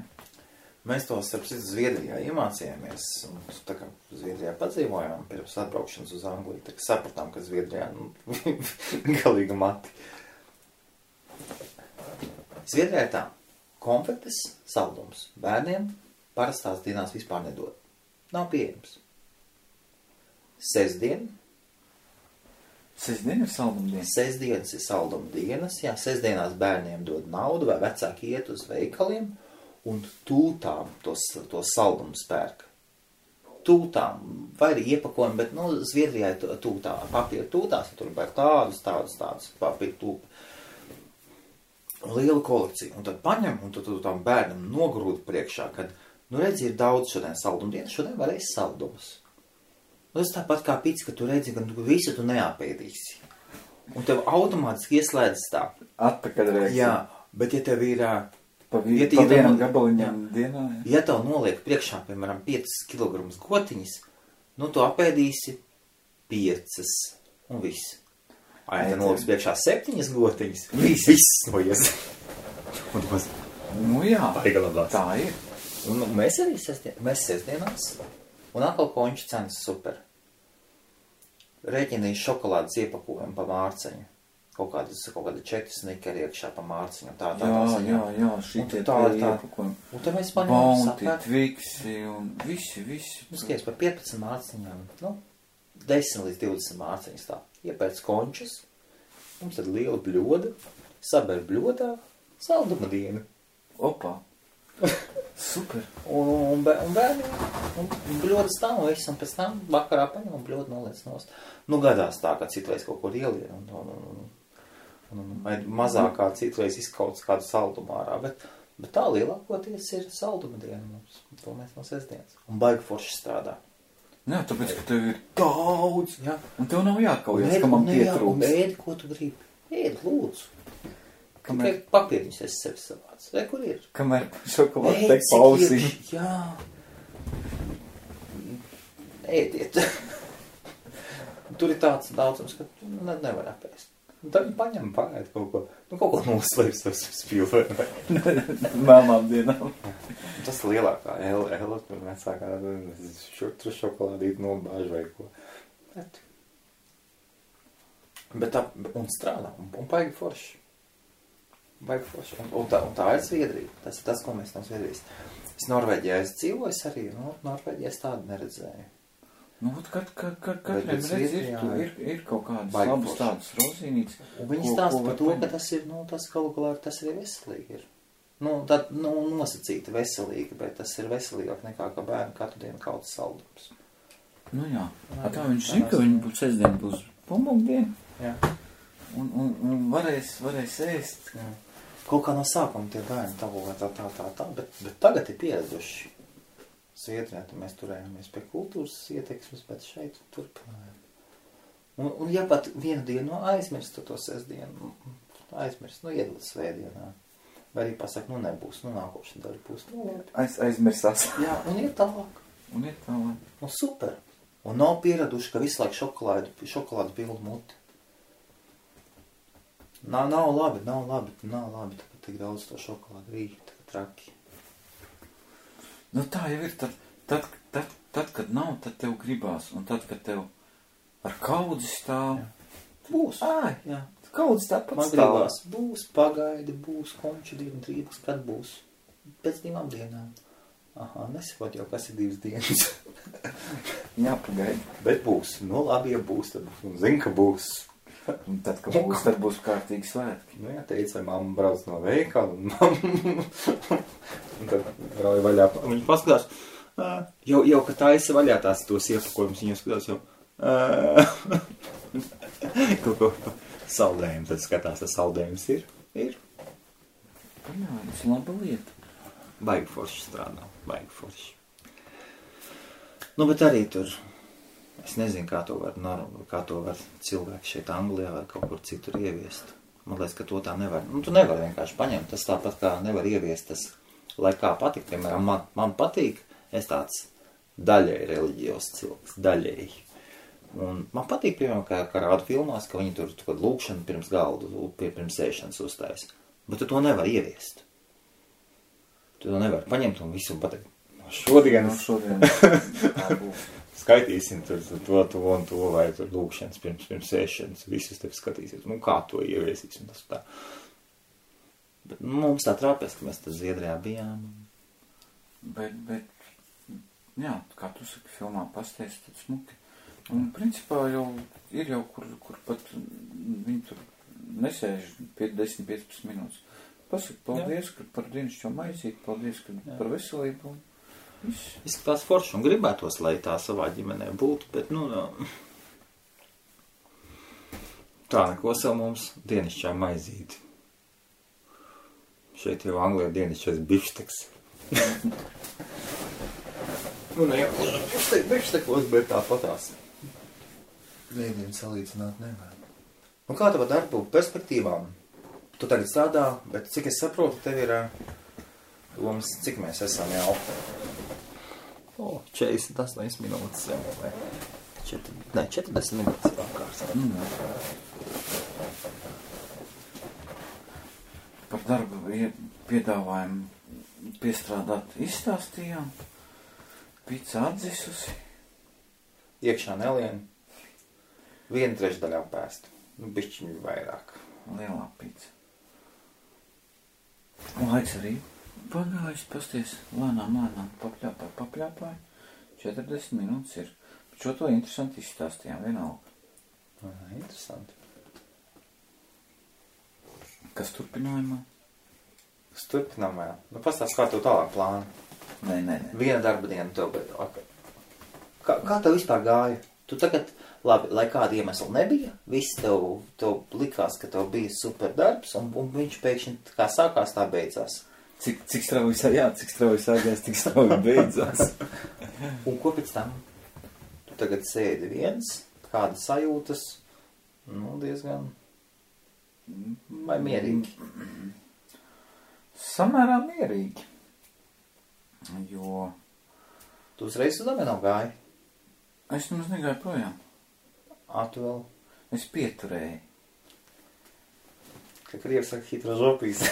Mēs to starp citu Zviedrijā iemācījāmies, un tā kā Zviedrijā padzīvojām pirms atbraukšanas uz Angliju, tā kā sapratām, ka Zviedrijā galīgi mati. Zviedrijā ir tā, konfektes saldums bērniem parastās dienās vispār nedod. Nav pieejams. Sestdien ir saldumdienas? Sestdienas ir saldumdienas, jā, sestdienās bērniem dod naudu vai vecāki iet uz veikaliem, un tūtām to saldumu spērk. Tūtām, vai arī iepakojumi, bet, Zviedrijā ir tūtā, papīra tūtās, tur ir tādus papīra tūpi. Liela kolekcija. Un tad paņem, un tu tam bērnam nogrūdi priekšā, kad, redzi, ir daudz šodien saldumdienas, šodien varēs saldumus. Tas tāpat kā pits, ka tu redzi, ka visu tu neapēdīsi. Un tev automātiski ieslēdzas tā. Atpakaļ reizē. Jā, bet ja tev ir... Pa vienam gabaliņam dienā. Ja tev noliek priekšā, piemēram, 5 kg gotiņas, tu apēdīsi 5 un viss. Ja tev noliek priekšā 7 gotiņas, viss noies. Jā, Paigalabās. Tā ir. Un mēs arī sestdienās, un atkal konču cenas super. Rēķinīs šokolādes iepakojumu pa mārceņu. kaut kādi 4 snikeri iekšā pa mārciņu. Tā, Jā, šitie iepakojumi. Un tad mēs paņemam Bounty, Twixi un visi. Skaties, par 15 mārciņām, 10 līdz 20 mārciņas tā. Iepēc končus, mums tad liela bļoda, saber bļodā, salduma diena. Opa! Super! Un bērni, un bļoda stāv un viss, un pēc tam vakarā paņem un bļoda noliec nost. Gadās tā, ka citreiz kaut kur ielien, vai mazākā citreiz izkauts kādu saldumu ārā, bet tā lielākoties ir salduma diena mums, to mēs no sestdienas. Un baigi forši strādā. Jā, tāpēc, ka tev ir daudz, jā. Un tev nav jākaujas, ka man pietrūks. Un ēdi, ko tu gribi. Ēdi, lūdzu. Tikai papīriņus es sevi savāc. Vai kur ir? Kamēr šokolādi teik pausī. Jā. Ēdiet. Tur ir tāds daudzums, ka nevar apēst. Un tad viņi paņem pagaid kaut ko noslēps ar spilvē. Melnām dienām. Tas lielākā Ela, kur vecākā tur šokolādīt nobāž vai ko. Bet tā, un strādā, un baigi forši. Un tā ir Zviedrija. Tas ir tas, ko mēs no Zviedrijas. Es Norvēģijā dzīvoju arī, Norvēģijā es tādu neredzēju. Katram ir kaut kādas labas tādas rozīnītes. Un viņi stāsta par to, ka tas ir, tas galu galā tas arī veselīgi ir. Nosacīti veselīgi, bet tas ir veselīgāk nekā, ka bērni katru dienu kaut saldums. Jā. Tā viņš zina, ka viņi sestdien būs pumbugdiena. Jā. Un varēs ēst. Jā. Kaut kā no sākuma tie bērni tā, bet tagad ir pieraduši. Zviedrijā, mēs turējāmies pie kultūras ieteksmes, bet šeit turpinājām. Un ja pat vienu dienu aizmirst to sestdienu, iedod svētdienā. Vai arī pasaka, nebūs, nākošana daļa būs. Aizmirsās. Jā, un iet tālāk. Super. Un nav pieraduši, ka visu laiku šokolādu pildu muti. Nav labi, tāpēc tik daudz to šokolādu rīt, traki. Tā jau ir, tad, kad nav, tad tev gribās, un tad, kad tev ar kaudzi stāv. Būs. Jā. Kaudzi tāpat man stāv. Gribās, būs, pagaidi, būs, konču dienu, trības, kad būs? Pēc 2 dienām. Nesakot jau, kas ir 2 dienas. Jāpagaidi. Bet būs, labi, ja būs, tad būs, un zin, ka būs. Un tad, kad būs, tad būs kārtīgi svētki. Jā, teica, vai mamma brauc no veikala, un tad rauja vaļā. Viņi paskatās, jau ka taisa vaļā tās tos iepakojumus, viņi skatās jau, kaut ko saldējumu, tad skatās, tas saldējums ir. Jā, tas laba lieta. Baigi forši strādā, baigi forši. Bet arī tur, es nezinu, kā to var cilvēki šeit Anglijā vai kaut kur citur ieviest. Man liekas, ka to tā nevar. Tu nevar vienkārši paņemt. Tas tāpat kā nevar ieviest tas, lai kā patīk. Piemēram, man patīk, es tāds daļēji reliģijos cilvēks, daļēji. Un man patīk, piemēram, kā rādu filmās, ka viņi tur lūkšanu pirms galdu, pirms ēšanas uzstājas. Bet tu to nevar ieviest. Tu to nevar paņemt un visu pateikt. Šodien. Tā būs. Skaitīsim to un to, vai tur lūkšanas pirms ēšanas, visus tev skatīsies, kā to ieviesīs un tas tā. Bet mums tā trāpēs, ka mēs tad Zviedrijā bijām. Bet, jā, kā tu saki, filmā pasties, tad smuki. Un principā jau ir kur pat viņi tur nesēž 10-15 minūtes. Pasaka, paldies par dienasčo maizīti, paldies par veselību. Izskatās forši un gribētos, lai tā savā ģimenē būtu, bet, tā neko savu mums dienasčā maizīti. Šeit jau Anglijā dienasčais bifšteks. Bifštekos, bet tāpatās. Viedien salīdzināt nevar. Kā tava darbu perspektīvām? Tu tagad strādā, bet cik es saprotu, tev ir domas, cik mēs esam jau? 48 minūtes jau, vai 40 minūtes pārkārs. Par darbu piedāvājumu piestrādāt izstāstījām. Pica atdzisusi. Iekšā nelien. 1/3 apēst. Bišķiņu vairāk. Lielā pīca. Laiks arī pagājis, pasties, lēnām papļāpāji. 40 minūtes ir. Šo to interesanti izstāstījām, vienalga. Interesanti. Kas turpinājumā? Kas turpinājumā? Nu, pastāst, kā tev tālāk plāni? Nē. Viena darba diena tev, bet... Kā tev vispār gāja? Tu tagad, labi, lai kāda iemesla nebija, viss tev likās, ka tev bija super darbs, un viņš pēkšņi kā sākās, tā beidzās. Cik strauji sākās, tik strauji beidzās. Un ko pēc tam? Tu tagad sēdi viens, kāda sajūtas, nu, diezgan... Vai mierīgi? Samērā mierīgi. Jo... Tu uzreiz uz domino gāji? Es nemaz negāju projām. Tu vēl? Es pieturēju. Kā krievi saka, hitra žopīs.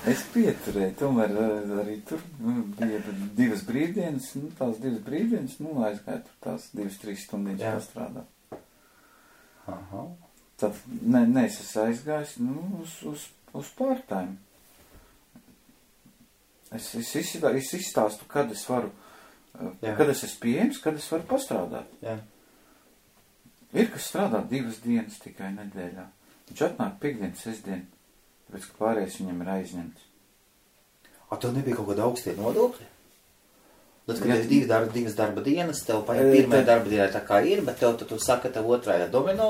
Es pieturēju, tomēr arī tur bija 2 brīvdienas, tās 2 brīvdienas, aizgāju tur tās 2-3 stundīņas pastrādāt. Aha. Tad, es esmu aizgājis, uz part-time. Es izstāstu, kad es varu, kad es esmu pieejams, kad es varu pastrādāt. Jā. Ir, kas strādā 2 dienas tikai nedēļā. Viņš atnāk piekdien, sestdien, tāpēc, ka pārējais viņam ir aizņemts. Tev nebija kaut kāda augstie nodokļi? Tad, kad ir 2 darba dienas, tev pirmajā darba dienā tā kā ir, bet tu saka, tev otrajā domino,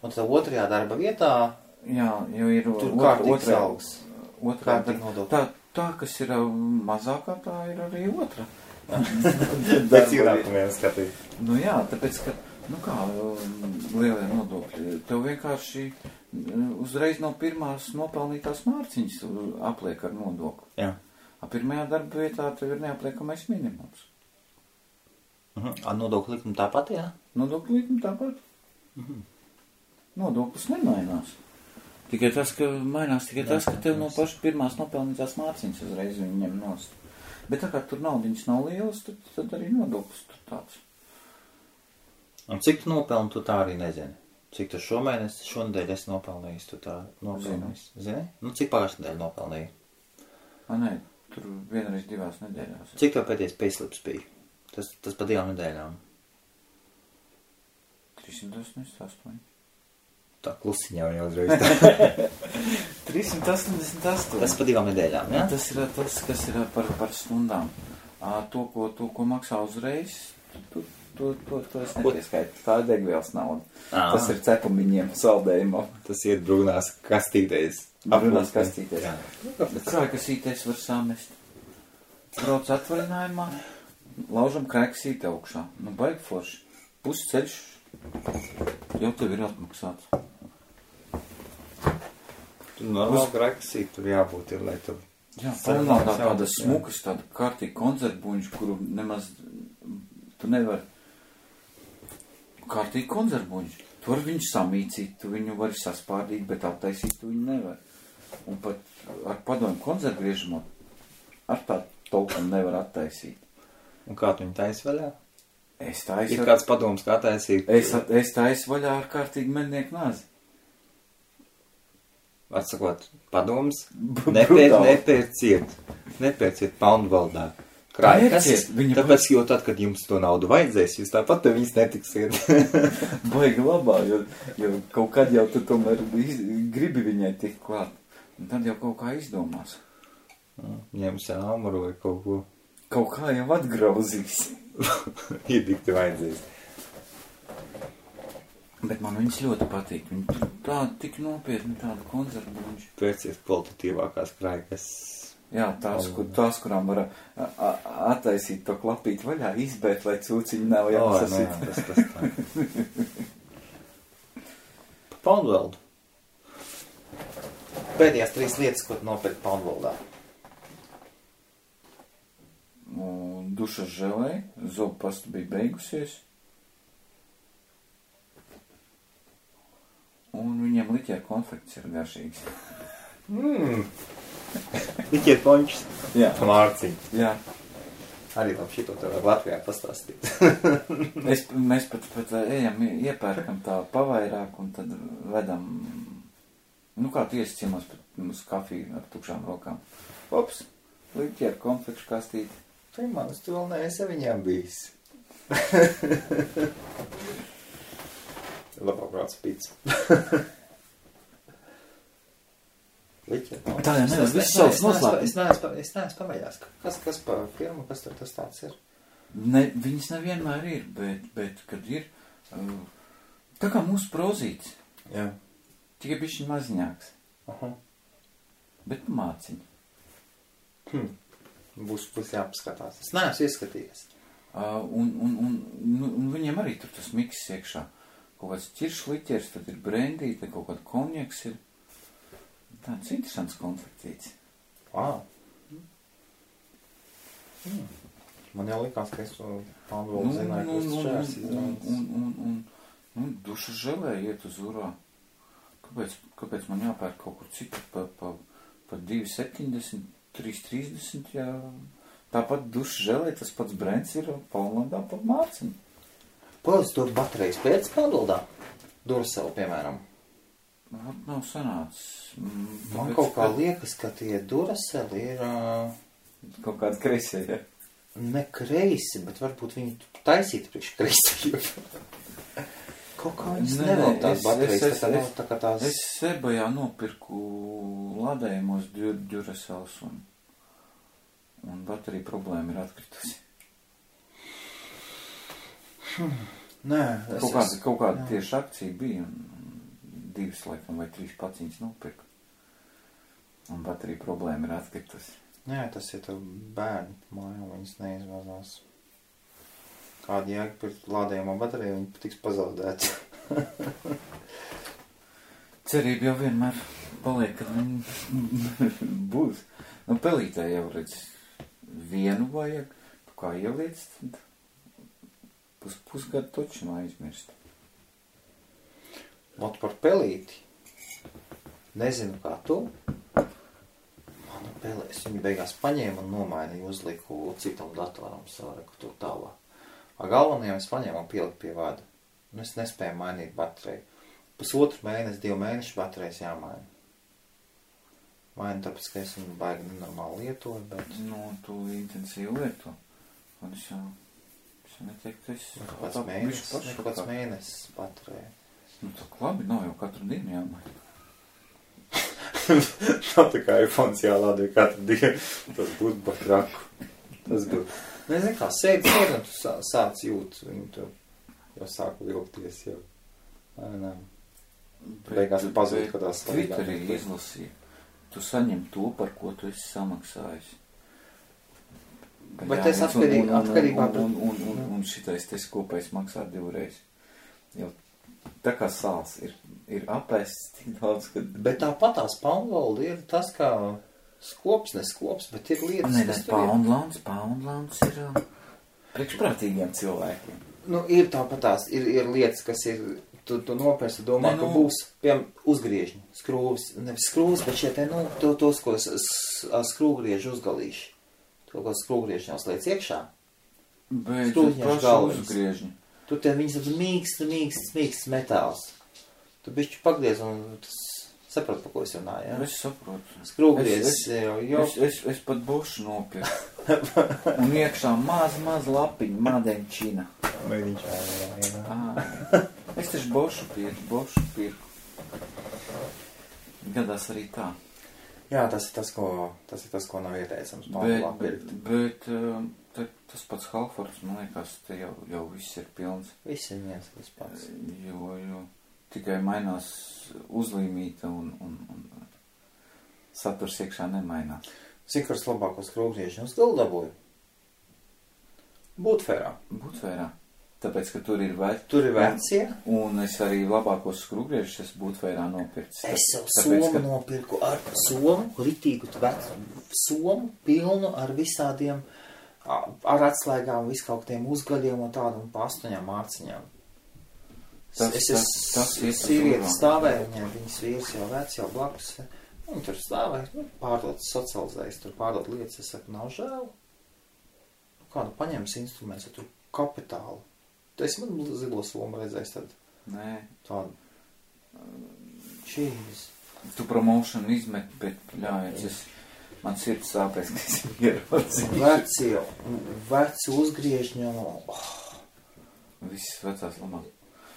un tev otrajā darba vietā... Jā, jo ir tur kārtīgs algas. Kārtīgi nodokļi. Tā, kas ir mazākā, tā ir arī otra. Pēc ienākumiem skatīt. Nu jā, tāpēc, ka, lielie nodokļi, tev vienkārši uzreiz no pirmās nopelnītās mārciņas apliek ar nodokli. Jā. Pirmajā darba vietā tev ir neapliekamais minimums. Nodokļu likuma tāpat, jā? Nodokļu likuma tāpat. Nodoklis nemainās. Tikai tas, ka mainās tas, ka tev no paša pirmās nopelnītās mārciņas uzreiz viņi ņem nost. Bet tā kā tur naudiņas nav lielas, tad arī nodoklis tur tāds. Un cik tu nopelni, tu tā arī nezini? Cik tu šonedēļ esi nopelnījis, tu tā nopelnījis? Zini? Nu, cik pagājušajā nedēļā nopelnīji? Nē, tur vienreiz 2 nedēļās. Cik tev pēdējais payslips bija? Tas pa 2 nedēļām. 388. Tā klusiņā jau uzreiz. 388. Tas pa 2 nedēļām, jā? Tas ir tas, kas ir par stundām. To, ko maksā uzreiz, to es nepieskaitu. Tā ir degvielas nauda. Tas ir cepumiņiem, saldējumam. Tas iet brūnās kastītēs. Brūnās kastītēs. Kā kasītēs var samest? Brauc atvaļinājumā, laužam krēksīti augšā. Baigi forši. Pusceļš jau tev ir atmaksāts. Tur normāli krēksīti tur jābūt ir, lai tu... Jā, nav tāda smukas, tāda kārtīgi konzervbuņš, kuru nemaz tu nevar... Kārtīgi konzervbuņš. Tu var viņu samīcīt, tu viņu vari saspārdīt, bet attaisīt tu viņu nevar. Un pat ar padomu konzervgriežamo ar tā tolkam nevar attaisīt. Un kā tu viņu taisi vaļā? Es taisu... Ir kāds padoms, kā taisīt? Es taisu vaļā ar kārtīgi mednieku nazi. Atsakot, padoms, nepērciet poundu valdā. Krājkas, tāpēc, jo tad, kad jums to naudu vajadzēs, jūs tāpat te viņas netiksiet. Baigi labā, jo kaut kad jau tu tomēr gribi viņai tikt klāt. Un tad jau kaut kā izdomās. Ņems āmuru vai kaut ko. Kaut kā jau atgrauzīs. Iedikti vajadzēs. Bet man viņas ļoti patīk. Viņi tur tāda tik nopietni, tāda konzervbuņš. Pērcies kvalitatīvākās krājkas. Jā, tās, kurām var attaisīt to klapīt vaļā, izbēt, lai cūciņi nav jāsasit. Tas tā. Pa Poundveldu. Pēdējās 3 lietas, ko tu nopērki Poundveldā. Dušas želē, zobu pasta bija beigusies. Un viņiem liķēra konfekts ir garšīgs. Liķēra pončs? Jā. Mārciņ. Jā. Arī labi šito tev Latvijā pastāstīt. Mēs pat ejam, iepērkam tā pavairāk un tad vedam, nu kā tu iesi ciemos uz kafiju ar tukšām rokām. Ops, liķi ar konfekšu kastīti. Tu manis, tu vēl neesi viņām bijis. Labāk brauc pīts. Liķi. Tā jau nevar viss savs noslēpums. Es neesmu pamēģinājis. Kas pa firmu, kas tur tas tāds ir? Ne, viņas nevienmēr ir, bet kad ir, tā kā mūsu prozīts. Jā. Tikai bišķiņ maziņāks. Aha. Bet māciņ. Būs jāpaskatās. Es neesmu ieskatījies. Un viņiem arī tur tas miks iekšā. Kaut kāds ķiršliķers, tad ir brendī, tad kaut kāda konjaks ir. Tāds interesants konfektīts. Wow. Man jau likās, ka es Pandolu zināju, ka tas šērs izrādās. Un duša želē iet uz urā. Kāpēc man jāpērk kaut kur citur pa 2,70, 3,30, jā. Tāpat duša želē, tas pats brends ir Polnlandā pa mārciņu. Pēc tur baterijas pēc Pandoldā? Duracell, piemēram. Nav sanācis. Man kaut kā liekas, ka tie Duracell ir... Kaut kādi kreisie, ja? Ne kreisi, bet varbūt viņi taisītu priekš kreisajiem. Kaut kā viņas nevēl tās baterijas, tā kā tās... Es Sebajā nopirku ladējumos Duracells un baterija problēma ir atkritusi. Nē, kaut kāda tieši akcija bija un 2 laikam vai 3 paciņas nopirku. Un baterija problēma ir atkritusi. Nē, tas ir tev bērni mājā, viņas neizvazās. Kāda jēga pirkt lādējumā bateriju, viņi patiks pazaudēt. Cerība jau vienmēr paliek, kad viņi būs. Nu, pelītē jau redz, vienu vajag, tu kā ieliec, tad pusgadu toču nav aizmirst. Ot par pelīti. Nezinu, kā tu. Manu pelēs viņi beigās paņēma un nomainīja, uzliku citam datoram savu tur tālāk. Galvenajam es paņēmu un pieliku pie vada. Un es nespēju mainīt bateriju. 1,5 mēnesi, 2 mēneši baterijas jāmaina. Mainu tāpēc, ka es viņu baigi nenormāli lietoju, bet... Nu, tu intensīvi lieto. Un es jau neteiktu, ka es... Kāds mēnesis baterija. Nu, tā labi, nav jau katru dienu jāmaina. Nav tā kā iPhones jālādē katru dienu. Tas būtu batraku. Tas būtu... Nezinu kā, sēdi un tu sāc jūt. Viņi tur jau sāku vilkties jau. Nē. Beigās pazūd, ka tās svarīgāk. Twitterī izlasīja. Tu saņem to, par ko tu esi samaksājis. Bet es atkarībā... Un šitais tes kopējs maksā 2 reizes. Jau tā kā sāls ir apēsts tik daudz, ka... Bet tāpat tās Poundland ir tas kā neskops, bet ir lietas, kas tur ir. Poundlands ir priekšprātīgiem cilvēkiem. Nu, ir tāpat tās, ir lietas, kas ir... Tu nopērsi, domā, ka būs, piemēram, uzgriežņi, skrūvis, nevis skrūvis, bet šie te, tos, ko skrūgrieži uzgalīši. To, ko skrūgrieži jau sliec iekšā. Bet paši uzgriežņi. Tu te viņas mīksts metāls. Tu bišķi pagriez un tas saprot, pa ko es runāju, ja? Es saprotu. Skrūgriezis jau. Es pat bošu nopirku. Un iekšā maz lapiņa, madeņčina. Es taču bošu pirku. Gadās arī tā. Jā, tas ir tas, ko nav ieteicams. Bet tas pats Halfords, man liekas, te jau viss ir pilns. Viss ir viens tas pats. Jo tikai mainās uzlīmīta un saturs iekšā nemainās. Cik varas labākos skrūgriežņus uz galdu dabūju? Būtfērā. Tāpēc, ka tur ir vecie. Un es arī labākos skrūgriežus esmu Būtfērā nopircis. Es jau somu nopirku ar ritīgu somu pilnu ar visādiem, ar atslēgām, viskautiem uzgaļiem un tādu un pa 8 mārciņām. Es sīvieti stāvēju, viņas vīrs jau vec, jau blakus. Un tur stāvēju, pārdot socializējas, tur pārdot lietas, es saku, nav žēl. kādu paņems instruments, tur kapitālu. Tu esi man zilo somu redzējis tad? Nē. Tādu. Čīz. Tu promotion izmet, bet ļājies, man sirds sāpēs, ka es ierodzīju. Veci uzgriežņi, Visas vecās lamās.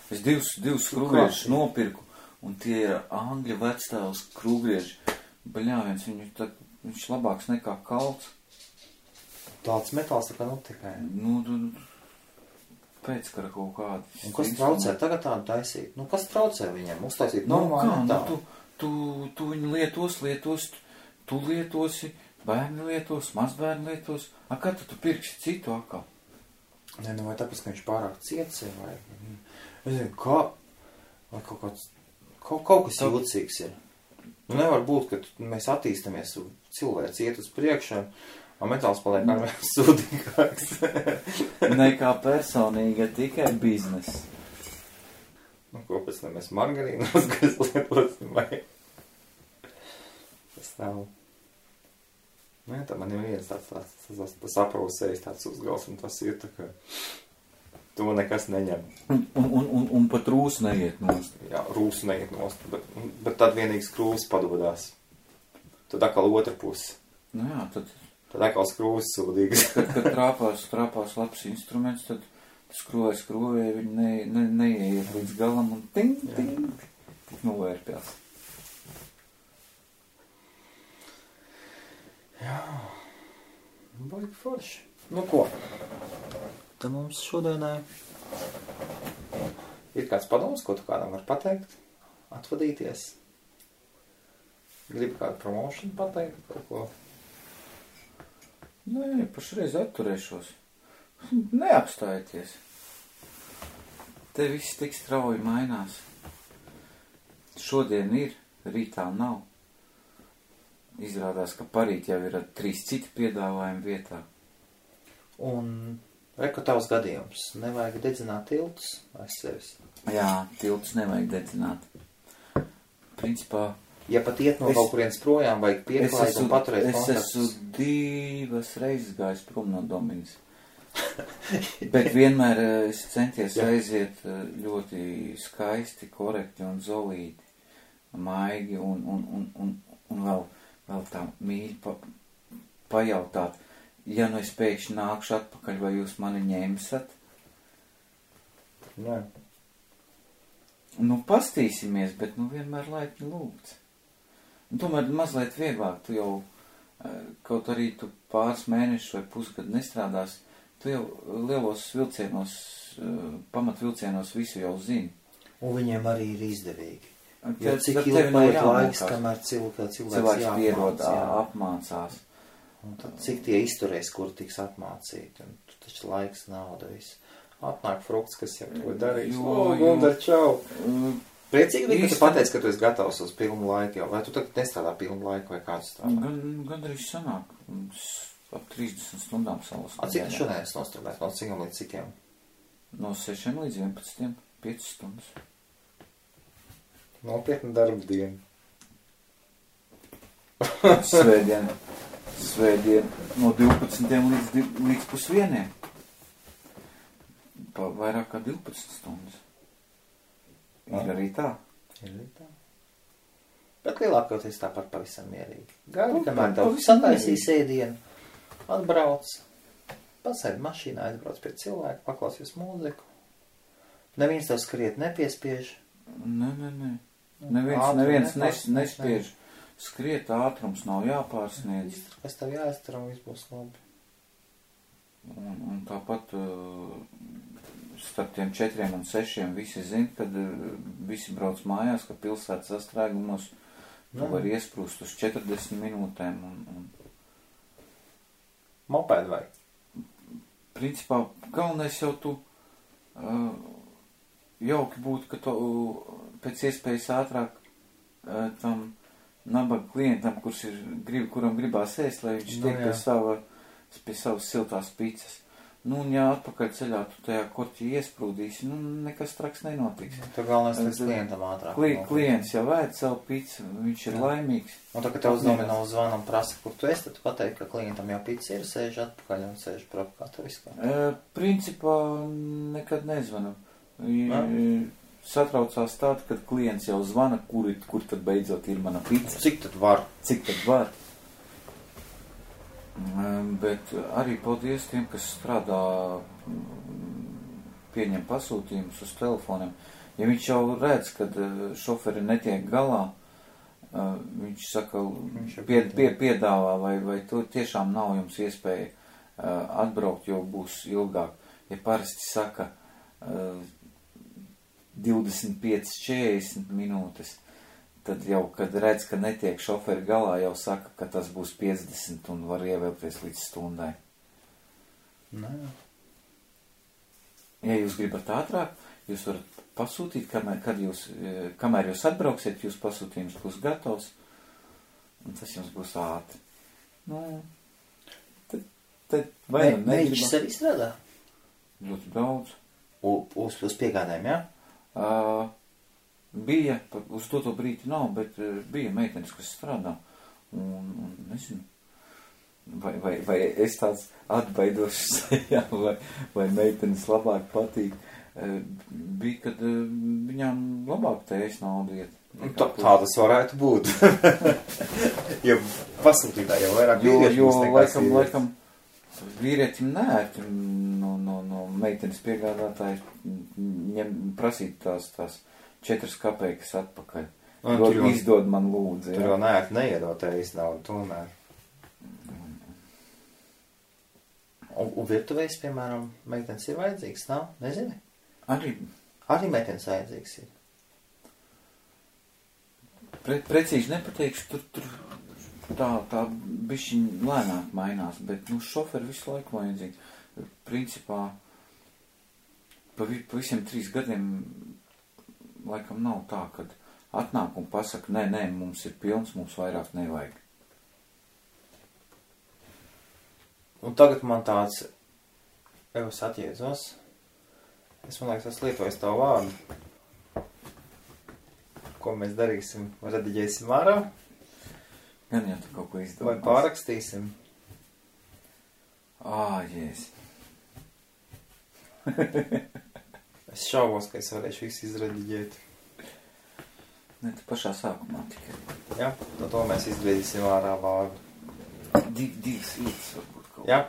Es divus skrūgriežus nopirku, un tie ir angļu vecstāvs skrūgrieži. Bļāviens, viņš labāks nekā kalts. Tāds metāls tā kā tikai. Nu, pēckara kaut kādi. Un kas traucē tagad tādu taisīt? Nu, kas traucē viņiem? Uztaisīt normāli metālu? Tu viņu lietos, tu lietosi, bērni lietos, mazbērni lietos. Kā tu pirksi citu akā? Nē, nu vai tāpēc, ka viņš pārāk ciets ir, vai... Es zinu, kā... Vai kaut kas jūtīgs ir. Nu, nevar būt, ka mēs attīstamies, cilvēks iet uz priekšu, un metāls paliek arvien sūdīgāks. Nekā personīga, tikai biznes. Nu, ko pēc tam mēs margarīnos, kas lietosim, vai... Tas nav... Nu, jā, tā man ir viens tāds aprausējis tāds uzgals, un tas ir tā, ka to nekas neņem. Un pat rūs neiet nost. Jā, rūs neiet nost, bet tad vienīgi skrūvs padodās. Tad atkal otra puse. Nu jā, tad atkal skrūvs sūdīgs. Kad trāpās labs instruments, tad skrūvēja, viņi neieiet līdz galam un ting, tik novērpjās. Jā, baigi forši. Nu ko? Tad mums šodienai ir kāds padoms, ko tu kādam var pateikt, atvadīties. Gribi kādu promotion pateikt, kaut ko? Nē, pašreiz atturēšos. Neapstājieties. Te viss tik strauji mainās. Šodien ir, rītā nav. Izrādās, ka parīt jau ir 3 citi piedāvājumi vietā. Un reko tavs gadījums. Nevajag dedzināt tiltus aiz sevis. Jā, tiltus nevajag dedzināt. Principā... Ja pat iet no kaut kurienes projām, vajag pieklājīt un paturēt kontaktus. Es esmu 2 reizes gājis prom no Dominas. Bet vienmēr es centies aiziet ļoti skaisti, korekti un zolīti, maigi un vēl tā mīļi pajautāt, ja nu es pēkšņi nākšu atpakaļ, vai jūs mani ņemsat? Jā. Nu, pastīsimies, bet nu vienmēr laipni lūgts. Tomēr mazliet vieglāk, tu jau, kaut arī tu pāris mēnešus vai pusgadu nestrādās, tu jau lielos vilcienos, pamatvilcienos visu jau zini. Un viņiem arī ir izdevīgi. Jo cik ilgi paiet laiks, kamēr cilvēks pierod, apmācās. Un tad cik tie izturēs, kur tiks apmācīti. Un taču laiks, nauda, viss. Atnāk frukts, kas jau to darīs. Gundar, čau! Priecīgi bija, ka tu pateici, ka tu esi gatavs uz pilnu laiku jau. Vai tu tagad nestrādā pilnu laiku vai kāds strādā? Gan arī sanāk. Ap 30 stundām salas. Cik tu šodien esi nostrādājis? No cikiem līdz cikiem? No 6 līdz 11, 5 stundas. Nopietna darba diena. Svētdien no 12 līdz pusvieniem. Pa vairāk kā 12 stundas. Ir arī tā. Ir arī tā. Bet lielākoties tāpat pavisam mierīgi. Gaidi, kamēr tev sataisīs ēdienu, atbrauc, pasēdi mašīnā, aizbrauc pie cilvēka, paklausies mūziku. Neviens tev skriet nepiespiež. Nē. Neviens nespiež. Skriet, ātrums nav jāpārsniedz. Kas tev jāiztur un viss būs labi. Un tāpat starp tiem 4 un 6 visi zina, kad visi brauc mājās, ka pilsētas sastrēgumos tu var iesprūst uz 40 minūtēm. Mopēdu vai? Principā, galvenais jau tu jauki būtu, ka tu pēc iespējas ātrāk tam nabaga klientam, kuram gribās ēst, lai viņš tiek pie savas siltās picas. Nu, un ja atpakaļ ceļā tu tajā korķī iesprūdīsi, nu, nekas traks nenotiks. Tu galvenais līdz klientam ātrāk. Klients jau ēd savu picu, viņš ir laimīgs. Un tā, ka tev uz domino zvanu un prasa, kur tu esi, tad tu pateiksi, ka klientam jau pica ir, sēž atpakaļ un sēž propā, tu viskā. Principā nekad nezvanu. Satraucās tāda, kad klients jau zvana, kur tad beidzot ir mana pica. Cik tad var? Bet arī paldies tiem, kas strādā, pieņem pasūtījumus uz telefoniem. Ja viņš jau redz, kad šoferi netiek galā, viņš saka, piedāvā, vai to tiešām nav jums iespēja atbraukt, jo būs ilgāk. Ja parasti saka 25-40 minūtes, tad jau, kad redz, ka netiek šoferi galā, jau saka, ka tas būs 50 un var ievēlties līdz stundai. Nē. Ja jūs gribat ātrāk, jūs varat pasūtīt, kamēr jūs atbrauksiet, jūs pasūtījums būs gatavs, un tas jums būs ātri. Nu, tad vai Mēģis sev izstrādā? Ļoti daudz. Uz piegādēm, jā? Bija, uz to brīdi nav, bet bija meitenes, kas strādā, un nezinu, vai es tāds atbaidošs sejā, vai meitenes labāk patīk, bija, kad viņām labāk tējas naudu iet. Tā tas varētu būt. Jo pasūtītā jau vairāk vīrieši. Jo laikam vīrietim neērti no meitenes piegādātāji prasīt tās 4 kapeikas atpakaļ. Izdod man lūdzu. Tur jau neērti neiedotējas naudu tomēr. Un virtuvēs, piemēram, meitenes ir vajadzīgs, nav? Nezini? Arī meitenes vajadzīgs ir. Precīzi nepateikšu, tur tā bišķiņ lēnāk mainās, bet, šoferi visu laiku vajadzīgi. Principā, pa visiem 3 gadiem laikam nav tā, kad atnāk un pasaka, nē, mums ir pilns, mums vairāk nevajag. Un tagad man tāds, es atjēdzos, man liekas, es lietoju tavu vārdu. Ko mēs darīsim? Rediģēsim ārā? Gan jau tu kaut ko izdomās. Vai pārakstīsim? Jēs. Es šaubos, ka es varēšu visu izrediģēt. Ne, tu pašā sākumā tikai. Jā, to mēs izdarīsim ārā vārdu. Divas vietas varbūt kaut. Jā.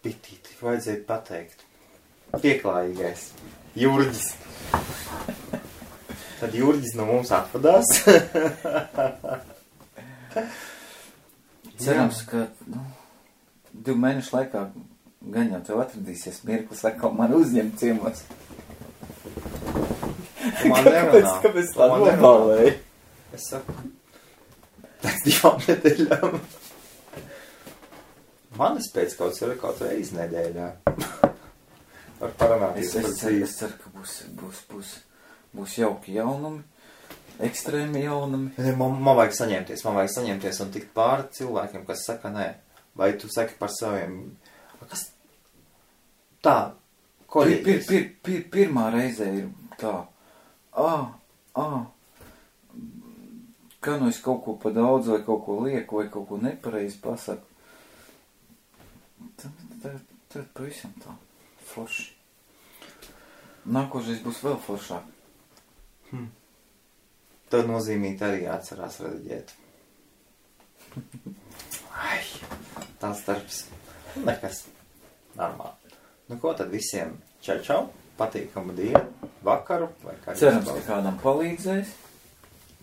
Pitīti, vajadzēja pateikt. Pieklājīgais. Jurģis. Tad Jurģis no mums atvadās. Cerams, ka 2 mēnešu laikā gan jau tev atradīsies mirklis, atkal man uzņemt ciemos. Man nerunā. Kāpēc tā nobalēja? Es saku, pēc 2 nedēļām. Manis pēc kaut reizi nedēļā. Var parunāties par dzīvi. Es ceru, ka būs jauki jaunumi, ekstrēmi jaunumi. Man vajag saņemties un tikt pāri cilvēkiem, kas saka nē. Vai tu saki par saviem... Kas? Tā, Pirmā reizē ir tā. Kā nu es kaut ko pa daudz, vai kaut ko lieku, vai kaut ko nepareizi pasaku. Tad pavisam tā. Forši. Nākošais būs vēl foršāk. Tad nozīmīgi arī atcerās rediģēt. Tāds darbs. Nekas. Normāli. Nu ko tad visiem čau, patīkamu dienu, vakaru, vai kā. Cerams, ka kādam palīdzēs.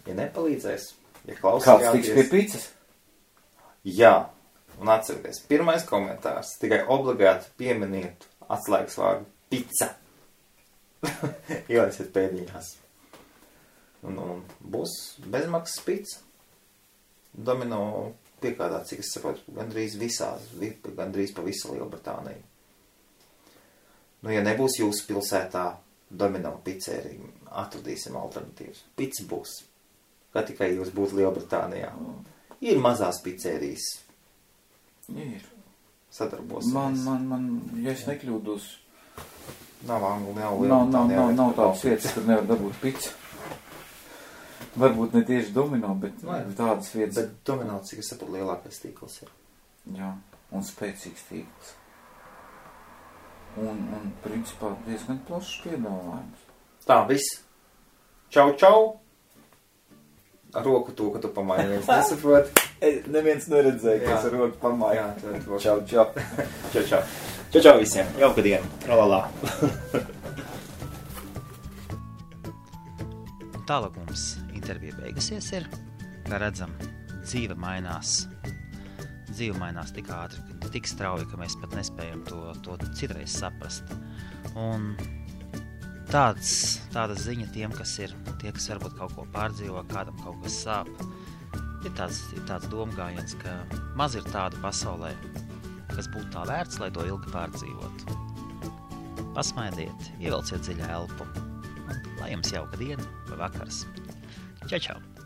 Ja nepalīdzēs, ja klausījāties. Kāds tiks pie picas? Jā, un atcerieties, pirmais komentārs, tikai obligāti pieminiet atslēgas vārdu pica. Ielaisiet pēdiņās. Un būs bezmaksas pica. Domino piekādā, cik es saprotu, gandrīz pa visu Lielbritāniju. Nu, ja nebūs jūsu pilsētā Domino pizzerija, atradīsim alternatīvas. Pica būs. Kā tikai jūs būtu Lielbritānijā. Ir mazās pizzerijas. Ir. sadarbosimies. Ja es nekļūdos, Nav angli, nav tādas vietas, kur nevar dabūt picu. Varbūt ne tieši domino, bet tādas vietas. Bet domino, cik es saprotu, lielākais tīkls ir. Jā, un spēcīgs tīkls. Un principā diezgan plašs piedāvājums. Tā, viss. Čau, čau! Ar roku to, ka tu pamāji, neviens nesaprot. Neviens neredzēja, kas ar roku pamāja. Jā, Čau, čau. čau, čau. Čau, čau visiem. Jauka diena. Tralalā. Tālāk mums intervija beigusies ir, kā redzam, dzīve mainās tik ātri, tik strauji, ka mēs pat nespējam to citreiz saprast. Un tāda ziņa tiem, kas varbūt kaut ko pārdzīvo, kādam kaut kas sāp, ir tāds domgājiens, ka maz ir tādu pasaulē, kas būtu tā vērts, lai to ilgi pārdzīvotu. Pasmaidiet, ievelciet dziļu elpu, un lai jums jauka diena vai vakars. Čau, čau!